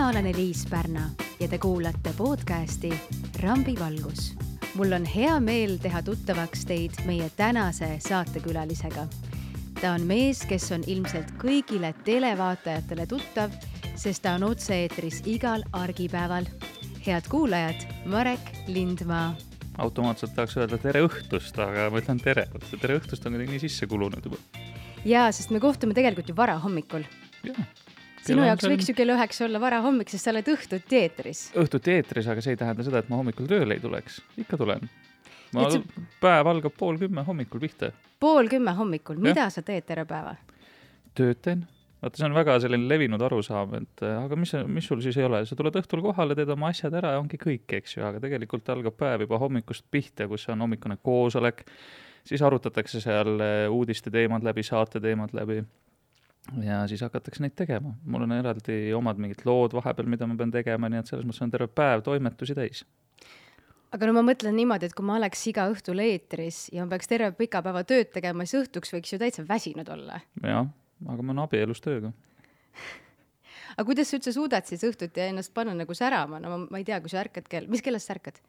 Mina olen Eliis Pärna ja te kuulate podcasti Rambi valgus. Mul on hea meel teha tuttavaks teid meie tänase saatekülalisega. Ta on mees, kes on ilmselt kõigile televaatajatele tuttav, sest ta on otse-eetris igal argipäeval. Head kuulajad, Marek Lindmaa. Automaatselt tahaks öelda tere õhtust, aga ma ütlen tere. Tere õhtust on nii sisse kulunud juba. Jaa, sest me kohtume tegelikult ju vara hommikul. Sinu jaoks võiks ju kell 9 olla vara hommik, sest sa oled õhtuti eetris. Õhtuti eetris, aga see ei tähenda seda, et ma hommikul tööle ei tuleks. Ikka tulen. Päev algab 9:30 hommikul pihta. 9:30 hommikul? Mida sa teed terve päeva? Töötan. Vaata, see on väga selline levinud arusaam, et aga mis sul siis ei ole? Sa tuled õhtul kohale, teed oma asjad ära ja ongi kõik, eks ju, aga tegelikult algab päev juba hommikust pihta, kus on hommikune koosolek, siis arutatakse seal uudiste teemad läbi, saate teemad läbi ja siis hakatakse neid tegema. Mul on eraldi omad mingid lood vahepeal, mida ma pean tegema, nii et selles mõttes on terve päev toimetusi täis. Aga no ma mõtlen niimoodi, et kui ma oleks iga õhtul eetris ja ma peaks terve pika päeva tööd tegema, siis õhtuks võiks ju täitsa väsinud olla. Jah, aga ma olen abielus tööga. Aga kuidas sa üldse suudad siis õhtuti ennast panna nagu särama? No ma ei tea, kui sa ärkad mis kellest sa ärkad?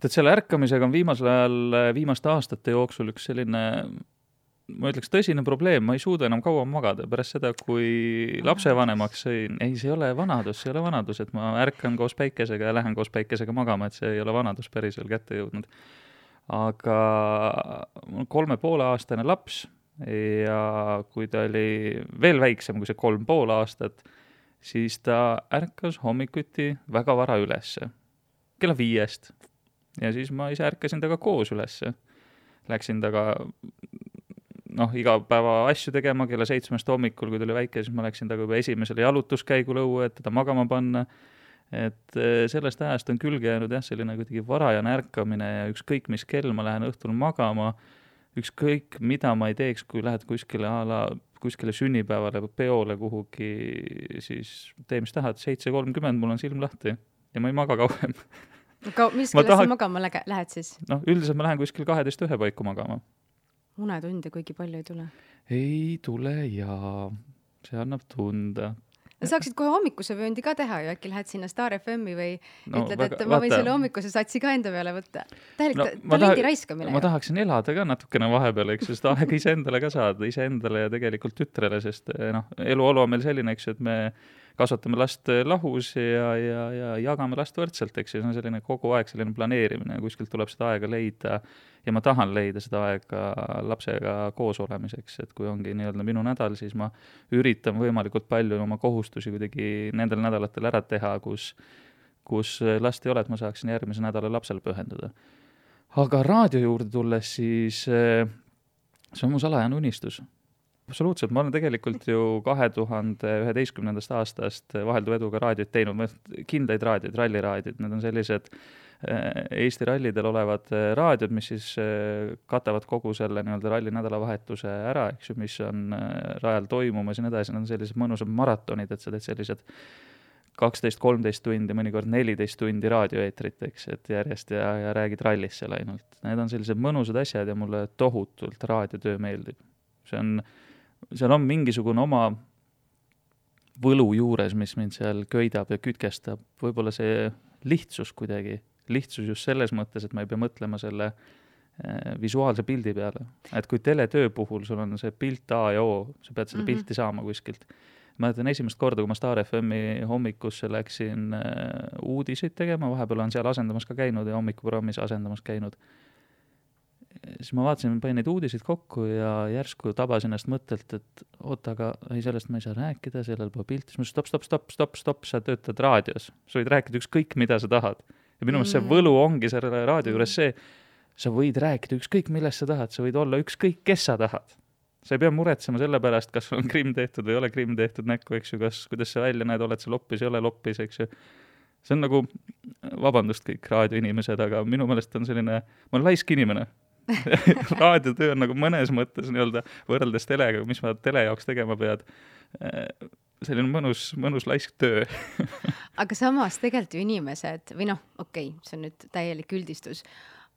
Tead, selle ärkamisega on viimasel ajal, viimaste aastate jooksul üks selline, ma ütleks, tõsine probleem. Ma ei suuda enam kaua magada pärast seda, kui lapsevanemaks sõin. Ei, see ei ole vanadus, et ma ärkan koos päikesega ja lähen koos päikesega magama, et see ei ole vanadus päris veel kätte jõudnud. Aga 3,5-aastane laps ja kui ta oli veel väiksem kui see 3,5 aastat, siis ta ärkas hommikuti väga vara ülesse. Kella 5. Ja siis ma ise ärkasin taga koos ülesse. Läksin taga iga päeva asju tegema kella 7 hommikul, kui ta oli väike, siis ma läksin taga juba esimesele jalutuskäigul õue, et teda magama panna. Et sellest ajast on külge jäänud selline kuidagi varajane ärkamine ja ükskõik mis kell ma lähen õhtul magama, ükskõik mida ma ei teeks, kui lähed kuskile sünnipäevale või peole kuhugi, siis tee mis tahad, 7:30 mul on silm lahti ja ma ei maga kauem. Mis kellest sa magama lähed siis? Üldiselt ma lähen kuskil 12:01 paiku magama. Unetunde kuigi palju ei tule? Ei tule ja see annab tunda. Saaksid kohe hommikuse vööndi ka teha ju, äkki lähed sinna Star FM-i või ütled, et ma võin selle hommikuse satsi ka enda peale võtta. Talendi raiskamine. Ma tahaksin elada ka natukene vahepeal, eks, sest aega iseendale ka saada, iseendale ja tegelikult tütrele, sest eluolu on meil selline, eks, et me kasvatame last lahus ja jagame last võrdselt, eks, see on selline kogu aeg selline planeerimine ja kuskilt tuleb seda aega leida ja ma tahan leida seda aega lapsega koos olemiseks, et kui ongi nii-öelda minu nädal, siis ma üritan võimalikult palju oma kohustusi kuidagi nendel nädalatel ära teha, kus last ei ole, et ma saaksin järgmise nädala lapsele pühenduda. Aga raadio juurde tulles, siis see on mu salajane unistus. Absoluutselt, ma olen tegelikult ju 2011. aastast vahelduva eduga raadiot teinud, kindaid raadioid, ralliraadiod, need on sellised Eesti rallidel olevad raadiod, mis siis katavad kogu selle nii-öelda ralli nädalavahetuse ära, eks ju, mis on rajal toimumas ja nii edasi, need on sellised mõnusad maratonid, et sa teed sellised 12-13 tundi, mõnikord 14 tundi raadioeetrit, eks, et järjest ja räägid rallist seal ainult. Need on sellised mõnusad asjad ja mulle tohutult raadiotöö meeldib. Seal on mingisugune oma võlu juures, mis mind seal köidab ja kütkestab. Võib-olla see lihtsus kuidagi. Lihtsus just selles mõttes, et ma ei pea mõtlema selle visuaalse pildi peale. Et kui teletöö puhul sul on see pilt A ja O, sa pead seda pilti saama kuskilt. Ma mõtlen esimest korda, kui ma Star FM-i hommikusse läksin uudiseid tegema, vahepeal on seal asendamas ka käinud ja hommikuprogrammis asendamas käinud. Siis ma vaatasin, panin neid uudiseid kokku ja järsku tabasin ennast mõttelt, et oota, aga sellest ma ei saa rääkida, sellel pole pilti. Siis ma stopp, sa töötad raadios. Sa võid rääkida ükskõik, mida sa tahad. Ja minu meelest see võlu ongi selle raadio juures see, sa võid rääkida ükskõik, millest sa tahad. Sa võid olla ükskõik, kes sa tahad. Sa ei pea muretsema selle pärast, kas on krimm tehtud või ei ole krimm tehtud näkku, eks ju, kuidas sa välja näed, oled sa loppis, ei ole loppis, eks ju. See on nagu, vabandust kõik raadioinimesed, aga minu meelest on selline, ma olen laisk inimene. Raadiotöö on nagu mõnes mõttes nii-öelda võrreldes telega, mis ma tele jaoks tegema pead. Selline mõnus laisk töö. Aga samas tegelikult ju inimesed, või okei, see on nüüd täielik üldistus,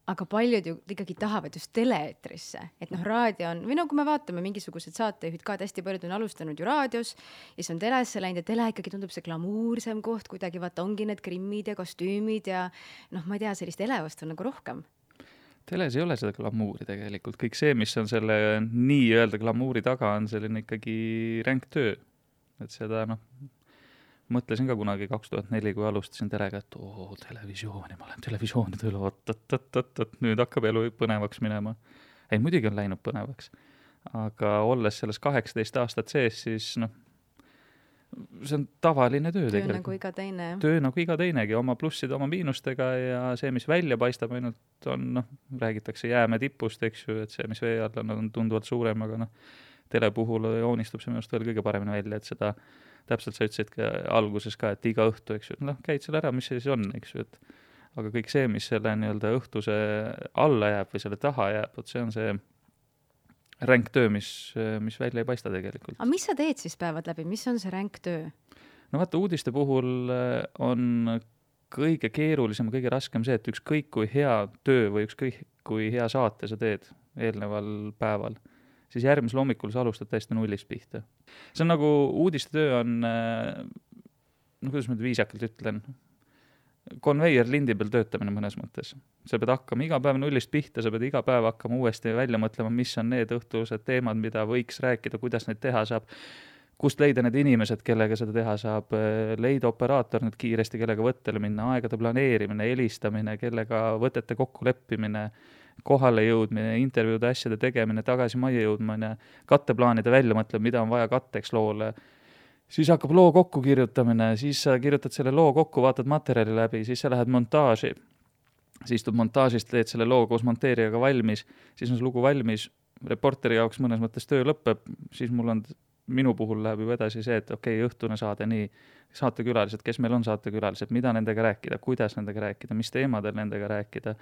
aga paljud ju ikkagi tahavad just tele-eetrisse, et noh, raadio on, või no kui me vaatame mingisugused saatejuhid ka, et hästi paljud on alustanud ju raadios ja siis on telesse läinud ja tele ikkagi tundub see glamuursem koht, kuidagi vaata ongi need grimmid ja kostüümid ja noh, ma ei tea, sellist elevust on nagu rohkem. Teles ei ole seda glamuuri tegelikult, kõik see, mis on selle nii-öelda glamuuri taga, on selline ikkagi ränk töö, et seda noh, mõtlesin ka kunagi 2004, kui alustasin telega, et televisiooni, ma olen televisiooni tööle, nüüd hakkab elu põnevaks minema. Ei, muidugi on läinud põnevaks. Aga olles selles 18 aastat sees, siis noh, see on tavaline töö tegelikult. Töö nagu iga teine. Töö nagu iga teinegi, oma plusside, oma miinustega ja see, mis välja paistab ainult on, noh, räägitakse jääme tipust, eks ju, et see, mis vee all on tunduvalt suurem, aga noh, tele puhul joonistub see minust veel kõige paremini välja, et seda täpselt sa ütlesid ka alguses ka, et iga õhtu, eks ju, noh, käid selle ära, mis see siis on, eks ju, et aga kõik see, mis selle nii-öelda õhtuse alla jääb või selle taha jääb, et see on see ränk töö, mis välja ei paista tegelikult. Aga mis sa teed siis päevad läbi, mis on see ränk töö? No vaata, uudiste puhul on kõige keerulisem, kõige raskem see, et ükskõik kui hea töö või ükskõik kui hea saate sa teed eelneval päeval, siis järgmisel hommikul sa alustad täiesti nullist pihta. See on nagu uudiste töö on, no kuidas ma viisakalt ütlen, konveier lindi peal töötamine mõnes mõttes. Sa pead hakkama iga päev nullist pihta, sa pead iga päev hakkama uuesti välja mõtlema, mis on need õhtused teemad, mida võiks rääkida, kuidas neid teha saab, kust leida need inimesed, kellega seda teha saab, leida operaator nüüd kiiresti, kellega võttele minna, aegade planeerimine, helistamine, kellega võtete kokku leppimine, kohale jõudmine, intervjuude asjade tegemine, tagasi majja jõudmine, katteplaanide välja mõtlema, mida on vaja katteks loole. Siis hakkab loo kokku kirjutamine, siis sa kirjutad selle loo kokku, vaatad materjali läbi, siis sa lähed montaaži. Siis tud montaažist teed selle loo koos monteerijaga valmis, siis on see lugu valmis, reporteri jaoks mõnes mõttes töö lõpeb, siis minu puhul läheb juba edasi see, et okei, õhtune saade, nii, saatekülalised, kes meil on saatekülalised, mida nendega rääkida, kuidas nendega rääkida, mis teemadel nendega rääkida,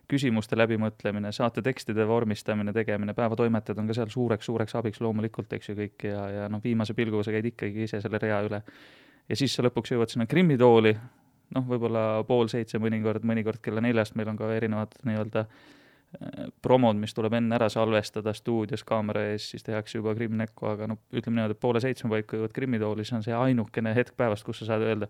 küsimuste läbimõtlemine, saate tekstide vormistamine, tegemine, päevatoimetajad on ka seal suureks abiks loomulikult, eks ju kõik, ja noh, viimase pilguga sa käid ikkagi ise selle rea üle. Ja siis sa lõpuks jõuad sinna krimmitooli, noh, võib-olla 6:30 mõnikord kella 4 meil on ka erinevad nii-öelda promod, mis tuleb enne ära salvestada stuudios kaamera ees, siis tehakse juba krimmnekku, aga no ütleme niimoodi, et 6:30 paika jõuad krimmitooli, see on see ainukene hetk päevast, kus sa saad öelda,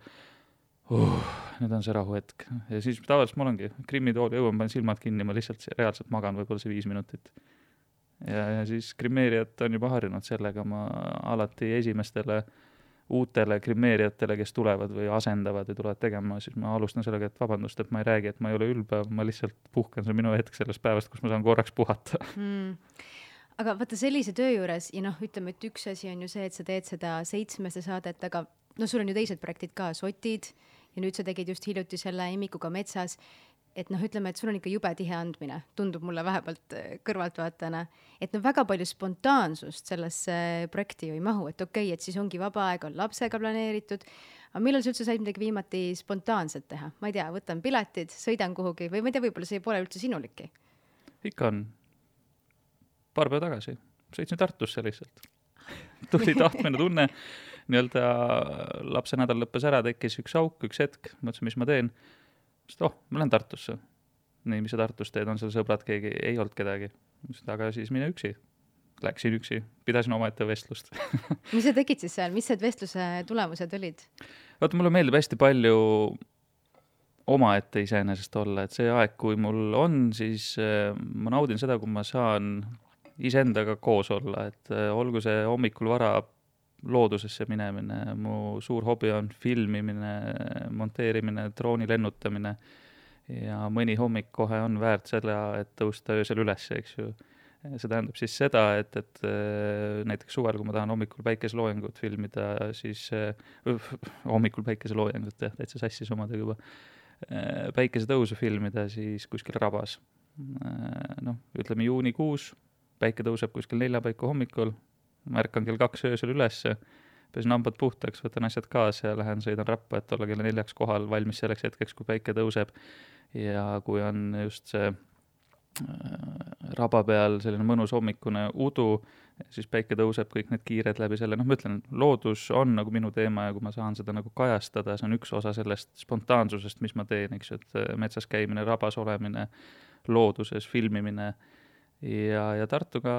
nüüd on see rahuhetk. Ja siis tavaliselt mul ongi krimmitooli jõuan, panen silmad kinni, ma lihtsalt reaalselt magan võib-olla see 5 minutit. Ja siis krimmeerijad on juba harjunud sellega, ma alati esimestele uutele krimmeerijatele, kes tulevad või asendavad ja tulevad tegema, siis ma alustan sellega, et vabandust, et ma ei räägi, et ma ei ole ülbe, ma lihtsalt puhkan, see on minu hetk sellest päevast, kus ma saan korraks puhata. Aga vaata sellise töö juures, ja noh, ütleme, et üks asi on ju see, et sa teed seda 7 saadet, aga no sul on ju teised projektid ka, Sotid, ja nüüd sa tegid just hiljuti selle Emmikuga metsas, et noh, ütleme, et sul on ikka jube tihe andmine, tundub mulle vähemalt kõrvaltvaatajana, et no väga palju spontaansust sellesse projekti ju ei mahu, et okei, et siis ongi vaba aeg, on lapsega planeeritud, aga millal sa üldse said midagi viimati spontaanset teha? Ma ei tea, võtan piletid, sõidan kuhugi või ma ei tea, võib-olla see pole üldse sinuliki? Ikka on. Paar päeva tagasi. Sõitsin Tartusse lihtsalt. Tuli tahtmine tunne, nii-öelda lapse nädal lõppes ära, tekkis üks auk, üks hetk, mõtlesin, mis ma teen. Ma lähen Tartusse. Nii, mis sa Tartus teed, on seal sõbrad, keegi ei olnud kedagi. Aga siis mine üksi. Läksin üksi, pidasin omaette vestlust. Mis sa tegid siis seal? Mis need vestluse tulemused olid? Vaata, mulle meeldib hästi palju omaette iseenesest olla, et see aeg, kui mul on, siis ma naudin seda, kui ma saan iseendaga koos olla, et olgu see hommikul vara loodusesse minemine, mu suur hobi on filmimine, monteerimine, drooni lennutamine ja mõni hommik kohe on väärt selle, et tõusta öösel üles, eks ju. See tähendab siis seda, et näiteks suvel, kui ma tahan hommikul päikeseloojangut filmida, siis hommikul päikeseloojangut, täitsa sassis omadega juba, päikesetõusu filmida, siis kuskil rabas. No, ütleme juunikuus, päike tõuseb kuskil 4 paiku hommikul, märkan kell 2 öösel ülesse, pesin hambad puhtaks, võtan asjad kaasa ja lähen sõidan rappa, et olla kella 4 kohal valmis selleks hetkeks, kui päike tõuseb. Ja kui on just see raba peal selline mõnus hommikune udu, siis päike tõuseb kõik need kiired läbi selle. Noh, ma ütlen, loodus on nagu minu teema ja kui ma saan seda nagu kajastada, see on üks osa sellest spontaansusest, mis ma teen, eks ju, et metsas käimine, rabas olemine, looduses, filmimine ja Tartuga,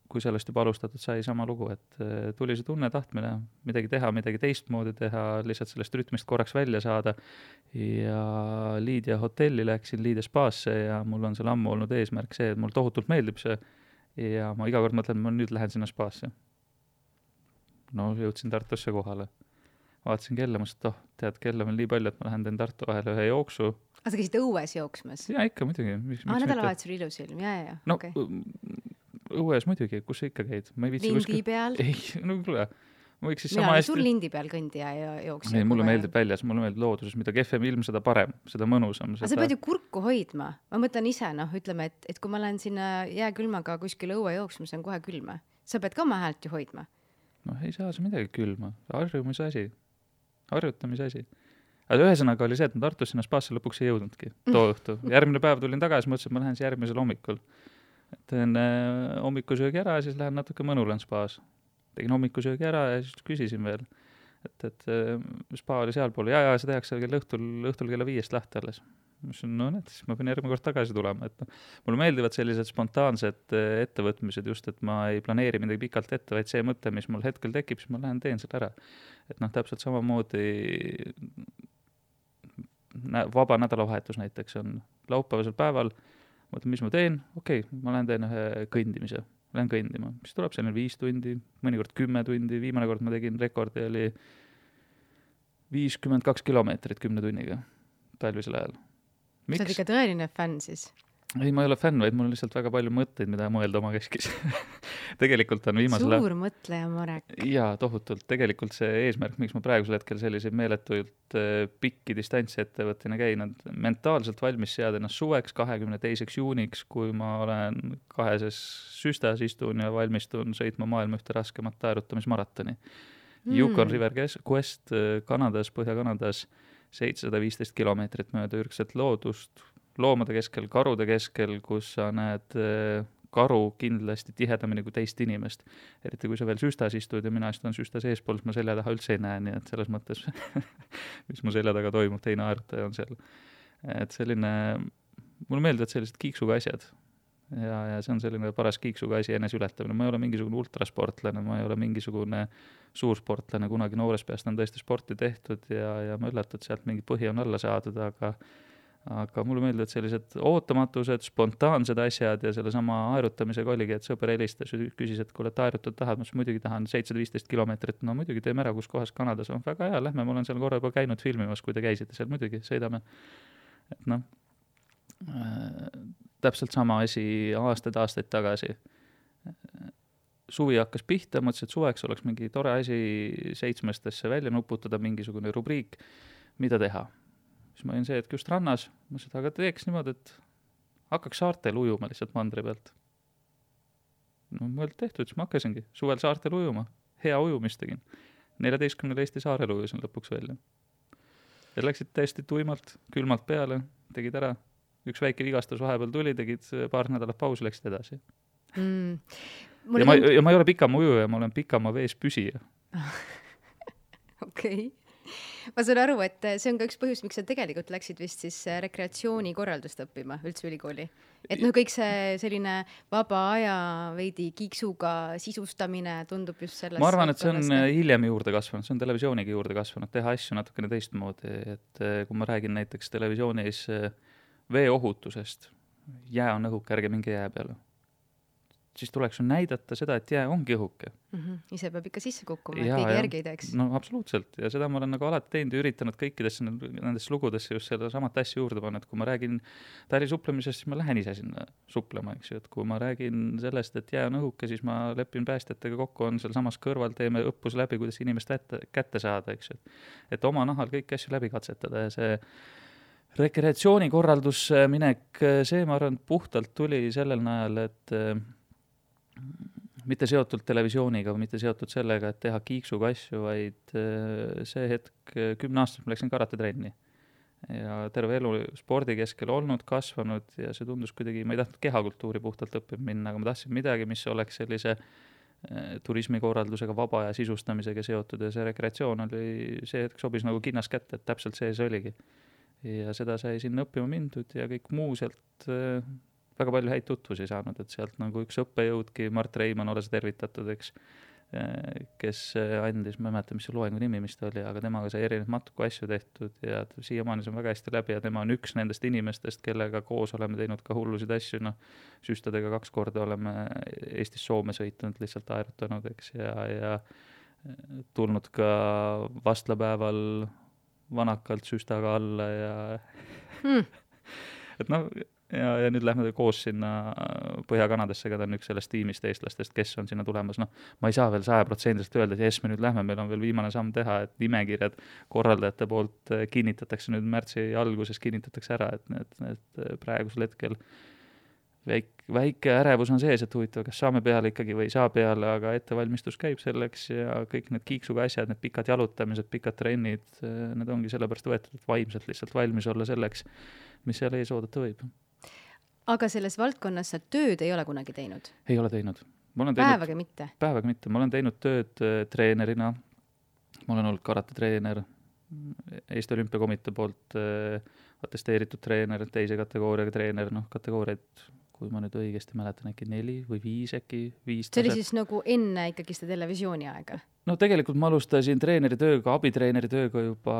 kui sellest juba alustatud, sai sama lugu, et tuli see tunne, tahtmine midagi teha, midagi teistmoodi teha, lihtsalt sellest rütmist korraks välja saada ja Liidia hotelli läksin, Liidia spaasse ja mul on seal ammu olnud eesmärk see, et mul tohutult meeldib see ja ma iga kord mõtlen, ma nüüd lähen sinna spaasse. No jõudsin Tartusse kohale. Vaatasin kella, ma ütlesin, et tead, kella on nii palju, et ma lähen teen Tartu vahele ühe jooksu. Aga sa käisid õues jooksmas? Ja ikka muidugi. Nädalavahetusel ilus ilm, ja. No okay. Õues muidugi, kus sa ikka käid? Lindi peal? Ei, no kuule. Mina olen sul lindi peal kõndija ja jooksja. Ei, mulle meeldib väljas, mulle meeldib looduses, mida kehvem ilm, seda parem, seda mõnusam. Aga sa pead ju kurku hoidma. Ma mõtlen ise, ütleme, et kui ma lähen sinna jääkülmaga kuskil õue jooksma, see on kohe külma. Sa pead ka oma häält ju hoidma. No ei saa see midagi külma. Harjumise asi. Harjutamise asi. Aga ühesõnaga oli see, et ma Tartus sinna spaasse lõpuks ei jõudnudki too õhtu. Järgmine päev tulin tagasi, mõtlesin, et ma lähen järgmisel hommikul. Teen hommikusöögi ära ja siis lähen natuke mõnulen spaas. Tegin hommikusöögi ära ja siis küsisin veel, et spa oli sealpool. Ja see tehakse õhtul kella 5 lahti alles. No need, siis ma pean järgmine kord tagasi tulema. Mulle meeldivad sellised spontaansed ettevõtmised just, et ma ei planeeri midagi pikalt ette, vaid see mõte, mis mul hetkel tekib, siis ma lähen teen selle ära. Et täpselt samamoodi vaba nädalavahetus näiteks on laupäevasel päeval, mõtlen, mis ma teen, ma lähen teen ühe kõndimise, lähen kõndima, mis tuleb selline 5 tundi, mõnikord 10 tundi, viimane kord ma tegin rekordi, oli 52 kilomeetrit 10 tunniga talvisel ajal. Miks? Sa oled ikka tõeline fänn siis? Ei, ma ei ole fänn, vaid mul on lihtsalt väga palju mõtteid, mida mõelda oma keskis. Tegelikult on viimasel... Suur mõtleja, Marek. Jaa, tohutult. Tegelikult see eesmärk, miks ma praegusel hetkel selliseid meeletuid pikki distantsi ettevõttina käin, on mentaalselt valmis seada ennast suveks 22. juuniks, kui ma olen 2 süstas istun ja valmistun sõitma maailma ühte raskemat taerutamismaratoni. Yukon River Quest Kanadas, Põhja-Kanadas 715 kilomeetrit mööda ürgset loodust, loomade keskel, karude keskel, kus sa näed karu kindlasti tihedamini kui teist inimest. Eriti kui sa veel süstas istud ja mina istun süstas eespool, siis ma selja taha üldse ei näe, nii et selles mõttes, mis mu selja taga toimub, teine aerutaja on seal. Et selline, mulle meeldivad sellised kiiksuga asjad. Ja see on selline paras kiiksuga asi enes ületamine. Ma ei ole mingisugune ultrasportlane, ma ei ole mingisugune suursportlane, kunagi noores peast on tõesti sporti tehtud ja ma üllatud sealt mingi põhi on alla saadud, aga mulle meeldivad sellised ootamatused, spontaansed asjad ja selle sama aerutamisega oligi, et sõber helistas ja küsis, et kui oled aerutud tahad, ma muidugi tahan 715 kilomeetrit, no muidugi teeme ära, kus kohas Kanadas on väga hea, lähme, ma olen seal korra juba käinud filmimas, kui te käisite seal, muidugi sõidame. Et täpselt sama asi aastaid tagasi. Suvi hakkas pihta, mõtlesin, et suveks oleks mingi tore asi 7-stesse välja nuputada, mingisugune rubriik, mida teha. Siis ma olin see, et just rannas, mõtlesin, aga teeks niimoodi, et hakkaks saartel ujuma lihtsalt mandri pealt. No mõeld tehtud, siis ma hakkasingi suvel saartel ujuma. Hea ujumist tegin. 14 Eesti saarel ujusin lõpuks välja. Ja läksid täiesti tuimalt, külmalt peale, tegid ära. Üks väike vigastus vahepeal tuli, tegid paar nädalat pausi, läksid edasi. Ja ma ei ole pikama ujuja, ma olen pikama vees püsija. Okei. Ma saan aru, et see on ka üks põhjus, miks sa tegelikult läksid vist siis rekreatsioonikorraldust õppima üldse ülikooli. Et kõik see selline vaba aja veidi kiiksuga sisustamine tundub just sellest. Ma arvan, et see on hiljem juurde kasvanud, see on televisiooniga juurde kasvanud, teha asju natukene teistmoodi. Et kui ma räägin näiteks televisioonis veeohutusest, jää on õhuke, ärge minge jää peale. Siis tuleks näidata seda, et jää ongi õhuke. Ise peab ikka sisse kukkuma, et keegi järgi ei teeks. No absoluutselt, ja seda ma olen nagu alati teinud ja üritanud kõikidesse nendesse lugudesse just selle samat asja juurde panna, et kui ma räägin tali suplemisest, siis ma lähen ise sinna suplema, eks ju, et kui ma räägin sellest, et jää on õhuke, siis ma lepin päästjatega kokku, on seal samas kõrval, teeme õppus läbi, kuidas inimest kätte saada, eks ju. Et oma nahal kõiki asju läbi katsetada ja see rekreatsioonikorraldus minek, see ma arvan, puhtalt tuli sellel najal, et mitte seotud televisiooniga või mitte seotud sellega, et teha kiiksuga asju, vaid see hetk 10 aastast ma läksin karatetrenni. Ja terve elu spordi keskel olnud, kasvanud ja see tundus kuidagi, ma ei tahtnud kehakultuuri puhtalt õppima minna, aga ma tahtsin midagi, mis oleks sellise turismikorraldusega, vaba ja sisustamisega seotud ja see rekreatsioon oli see hetk sobis nagu kinnas kätte, et täpselt see oligi. ja seda sai sinna õppima mindud ja kõik muu sealt väga palju häid tutvusi saanud, et sealt nagu üks õppejõudki, Mart Reimann, ole sa tervitatud, eks, kes andis, ma ei mäleta, mis see loengu nimi, mis ta oli, aga temaga sai erinevaid matuku asju tehtud ja siiamaani see on väga hästi läbi ja tema on üks nendest inimestest, kellega koos oleme teinud ka hullusid asju, noh, süstadega 2 korda oleme Eestis Soome sõitnud, lihtsalt aerutanud, eks, ja tulnud ka vastlapäeval vanakalt süstaga alla ja et noh, ja nüüd lähme koos sinna Põhja-Kanadasse, ka ta on üks sellest tiimist eestlastest, kes on sinna tulemas. Noh, ma ei saa veel 100% öelda, et jes, me nüüd lähme, meil on veel viimane samm teha, et nimekirjad korraldajate poolt kinnitatakse nüüd märtsi alguses, kinnitatakse ära, et praegusel hetkel väike ärevus on sees, et huvitav, kas saame peale ikkagi või ei saa peale, aga ettevalmistus käib selleks ja kõik need kiiksuga asjad, need pikad jalutamised, pikad trennid, need ongi sellepärast võetud, et vaimselt lihtsalt valmis olla selleks, mis seal ees oodata võib. Aga selles valdkonnas sa tööd ei ole kunagi teinud? Ei ole teinud. Päevaga mitte? Päevaga mitte. Ma olen teinud tööd treenerina. Ma olen olnud karate-treener, Eesti Olümpiakomitee poolt atesteeritud treener, teise kategooriaga treener, noh, kategooriaid, kui ma nüüd õigesti mäletan, äkki 4 või 5 äkki, 5 See oli siis nagu enne ikkagi seda televisiooni aega? No tegelikult ma alustasin treeneri tööga, abitreeneri tööga juba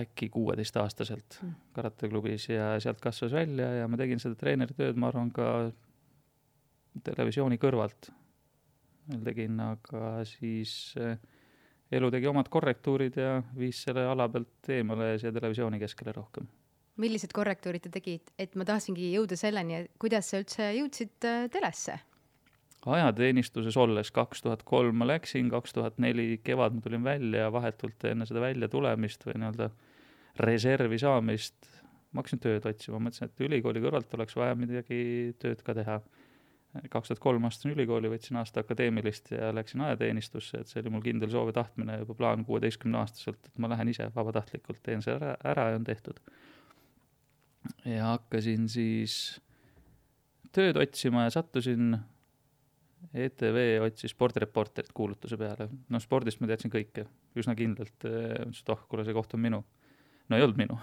äkki 16-aastaselt karateklubis ja sealt kasvas välja ja ma tegin seda treeneri tööd, ma arvan, ka televisiooni kõrvalt. Tegin, aga siis elu tegi omad korrektuurid ja viis selle ala pealt eemale ja televisiooni keskele rohkem. Millised korrektuurid te tegid? Et ma tahtsingi jõuda selleni, kuidas sa üldse jõudsid telesse? Ajateenistuses olles 2003 ma läksin, 2004 kevad ma tulin välja ja vahetult enne seda välja tulemist või nii-öelda reservi saamist ma hakkasin tööd otsima. Mõtlesin, et ülikooli kõrvalt oleks vaja midagi tööd ka teha. 2003 astusin ülikooli, võtsin aasta akadeemilist ja läksin ajateenistusse, et see oli mul kindel soov ja tahtmine juba plaan 16-aastaselt, et ma lähen ise vabatahtlikult, teen see ära ja on tehtud. Ja hakkasin siis tööd otsima ja sattusin ETV otsis spordireporterit kuulutuse peale. No spordist ma teadsin kõike, üsna kindlalt, kuule see koht on minu. No ei olnud minu.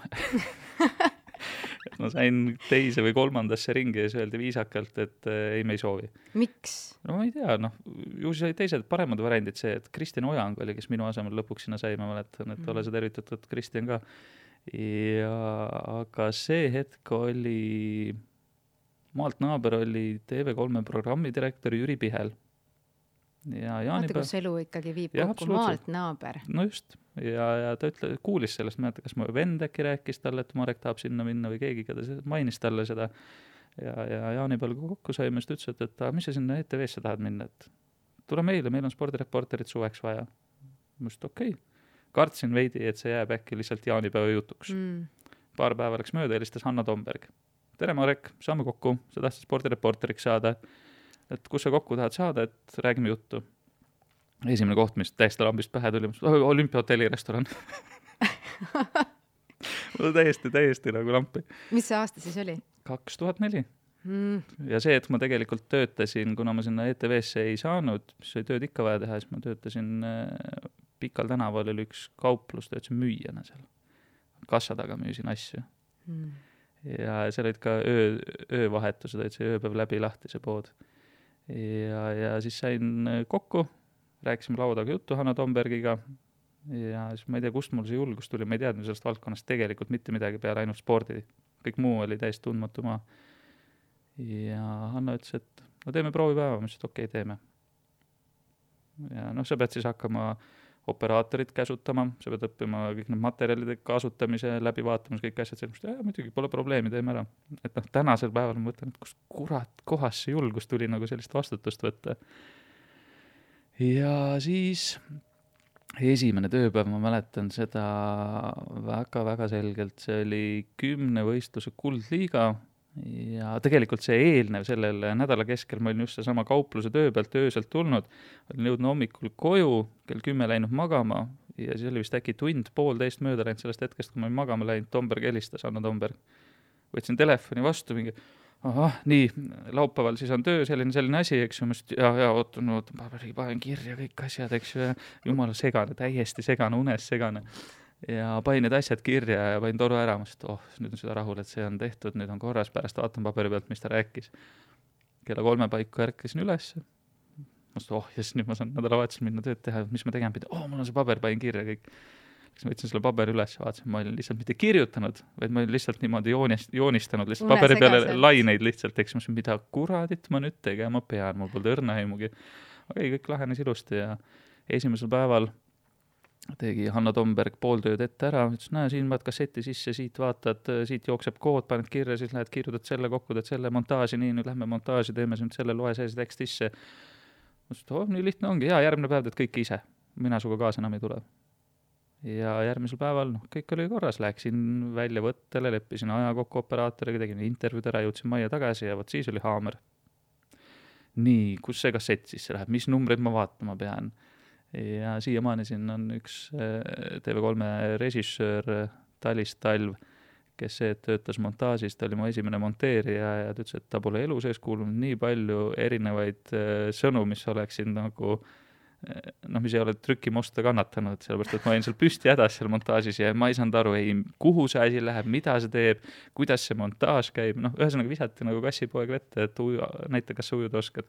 Ma sain teise või 3. ringi ja siis öeldi viisakalt, et ei, me ei soovi. Miks? No ma ei tea, noh, ju siis oli teised paremad variandid see, et Kristjan Ojang oli, kes minu asemel lõpuks sinna sai, ma mäletan, et ole sa tervitatud, Kristjan ka. Ja aga see hetk oli, maalt naaber oli TV3 programmidirektor Jüri Pihel. Vaata, kus elu ikkagi viib kokku, maalt naaber. No just, ja ta kuulis sellest, ma kas mu vend äkki rääkis talle, et Marek tahab sinna minna või keegi, keda mainis talle seda. Ja Jaanipäeval kokku saime, siis ütles, et mis sa sinna ETV-sse tahad minna, et tule meile, meil on spordireporterit suveks vaja. Ma ütlesin, okei. Kartsin veidi, et see jääb äkki lihtsalt jaanipäeva jutuks. Paar päeva läks mööda, helistas Hanna Tomberg. Tere Marek, saame kokku, sa tahtsid spordireporteriks saada, et kus sa kokku tahad saada, et räägime juttu. Esimene koht, mis täiesti lambist pähe tuli, Olümpiahotelli restoran. täiesti nagu lampi. Mis see aasta siis oli? 2004. Ja see, et ma tegelikult töötasin, kuna ma sinna ETV-sse ei saanud, mis oli tööd ikka vaja teha, siis ma töötasin Pikal tänaval oli üks kauplus, töötasin müüjana seal. Kassa taga müüsin asju. Ja seal olid ka öövahetused, et see ööpäev läbi lahti see pood. Ja siis sain kokku, rääkisime laudaga juttu Hanna Tombergiga ja siis ma ei tea, kust mul see julgus tuli, ma ei teadnud sellest valdkonnast tegelikult mitte midagi peale ainult spordi. Kõik muu oli täiesti tundmatu maa. Ja Hanna ütles, et no teeme proovipäeva, ma ütlesin, et okei, teeme. Ja noh, sa pead siis hakkama operaatorit käsutama, sa pead õppima kõik need materjalide kasutamise, läbi vaatamas kõik asjad sellest, muidugi pole probleemi, teeme ära. Et noh, tänasel päeval ma mõtlen, et kus kurat kohas see julgus tuli nagu sellist vastutust võtta. Ja siis esimene tööpäev, ma mäletan seda väga-väga selgelt, see oli 10 võistluse kuldliiga ja tegelikult see eelnev sellel nädala keskel ma olin just sama kaupluse töö pealt ööselt tulnud, olin jõudnud hommikul koju, kell 10 läinud magama ja siis oli vist äkki tund-poolteist mööda läinud sellest hetkest, kui ma olin magama läinud, Tomberg helistas, Hanna Tomberg. Võtsin telefoni vastu, mingi, nii, laupäeval siis on töö, selline asi, eks ju, ja ootan, panen kirja kõik asjad, eks ju, ja jumala segane, täiesti segane, unes segane. ja panin need asjad kirja ja panin toru ära, ma ütlesin, et nüüd on seda rahul, et see on tehtud, nüüd on korras, pärast vaatan paberi pealt, mis ta rääkis. Kella 3 paiku ärkasin üles, ma ütlesin, nüüd ma saan nädalavahetusel minna tööd teha, mis ma tegema pidi, mul on see paber, panin kirja kõik. Ma võtsin selle paberi üles ja vaatasin, ma olin lihtsalt mitte kirjutanud, vaid ma olin lihtsalt niimoodi joonistanud lihtsalt paberi peale laineid lihtsalt, eks ma ütlesin, mida kuradit ma nüüd tegema pean, mul polnud õrna aimugi. Kõik lahenes ilusti ja esimesel päeval tegi Hanno Tomberg pool tööd ette ära, ütles, siin vaat kasseti sisse, siit vaatad, siit jookseb kood, paned kirja, siis lähed kirjutad selle kokku, teed selle montaaži, nii, nüüd lähme montaaži, teeme nüüd selle, loe see tekst sisse. Ma ütlesin, nii lihtne ongi, järgmine päev teed kõik ise, mina suga kaasa enam ei tule. Ja järgmisel päeval, kõik oli korras, läksin välja võttele, leppisin aja kokku operaatoriga, tegin intervjuud ära, jõudsin majja tagasi ja võt siis oli haamer. Nii, kus see kassett sisse läheb, mis numbreid ma vaatama pean? Ja siiamaani siin on üks TV3 režissöör Talis Talv, kes töötas montaažis, ta oli mu esimene monteerija ja ta ütles, et ta pole elu sees kuulnud nii palju erinevaid sõnu, mis oleksid nagu mis ei ole trükimosta kannatanud, sellepärast, et ma olin seal püsti hädas seal montaažis ja ma ei saanud aru, kuhu see asi läheb, mida see teeb, kuidas see montaaž käib, ühesõnaga visati nagu kassipoeg vette, et näita, kas sa ujuda oskad.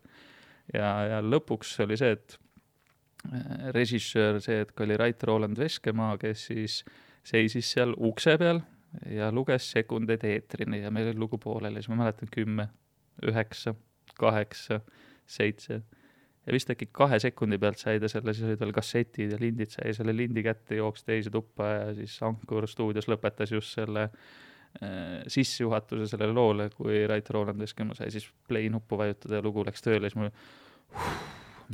Ja lõpuks oli see, et režissöör, see hetk oli Rait Roland Veskemaa, kes siis seisis seal ukse peal ja luges sekundeid eetrini ja meil oli lugu pooleli, siis ma mäletan 10, 9, 8, 7 ja vist äkki 2 sekundi pealt sai ta selle, siis olid veel kassetid ja lindid, sai selle lindi kätte, jooks teise tuppa ja siis Ankur stuudios lõpetas just selle sissejuhatuse sellele loole, kui Rait Roland Veskemaa sai siis play nuppu vajutada ja lugu läks tööle, siis mul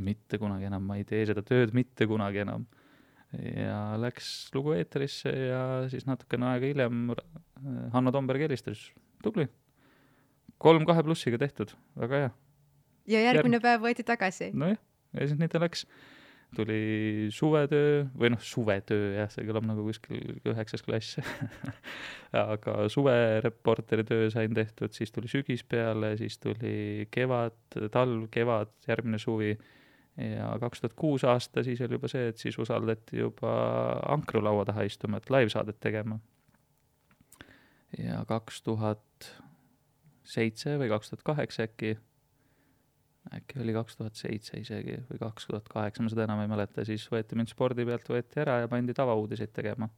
mitte kunagi enam, ma ei tee seda tööd mitte kunagi enam. Ja läks lugu eeterisse ja siis natukene aega hiljem Hanno Tomberg helistas, tubli. 3-2+ tehtud, väga hea. Ja järgmine päev võeti tagasi. Nojah, ja siis nii ta läks. Tuli suvetöö, või suvetöö, jah, see kõlab nagu kuskil 9. klass. Aga suvereporteri töö sain tehtud, siis tuli sügis peale, siis tuli kevad, talv, kevad, järgmine suvi. Ja 2006 aasta siis oli juba see, et siis usaldati juba Ankru laua taha istuma, et live-saadet tegema. Ja 2007 või 2008 äkki oli 2007 isegi või 2008, ma seda enam ei mäleta, siis võeti mind spordi pealt, võeti ära ja pandi tavauudiseid tegema.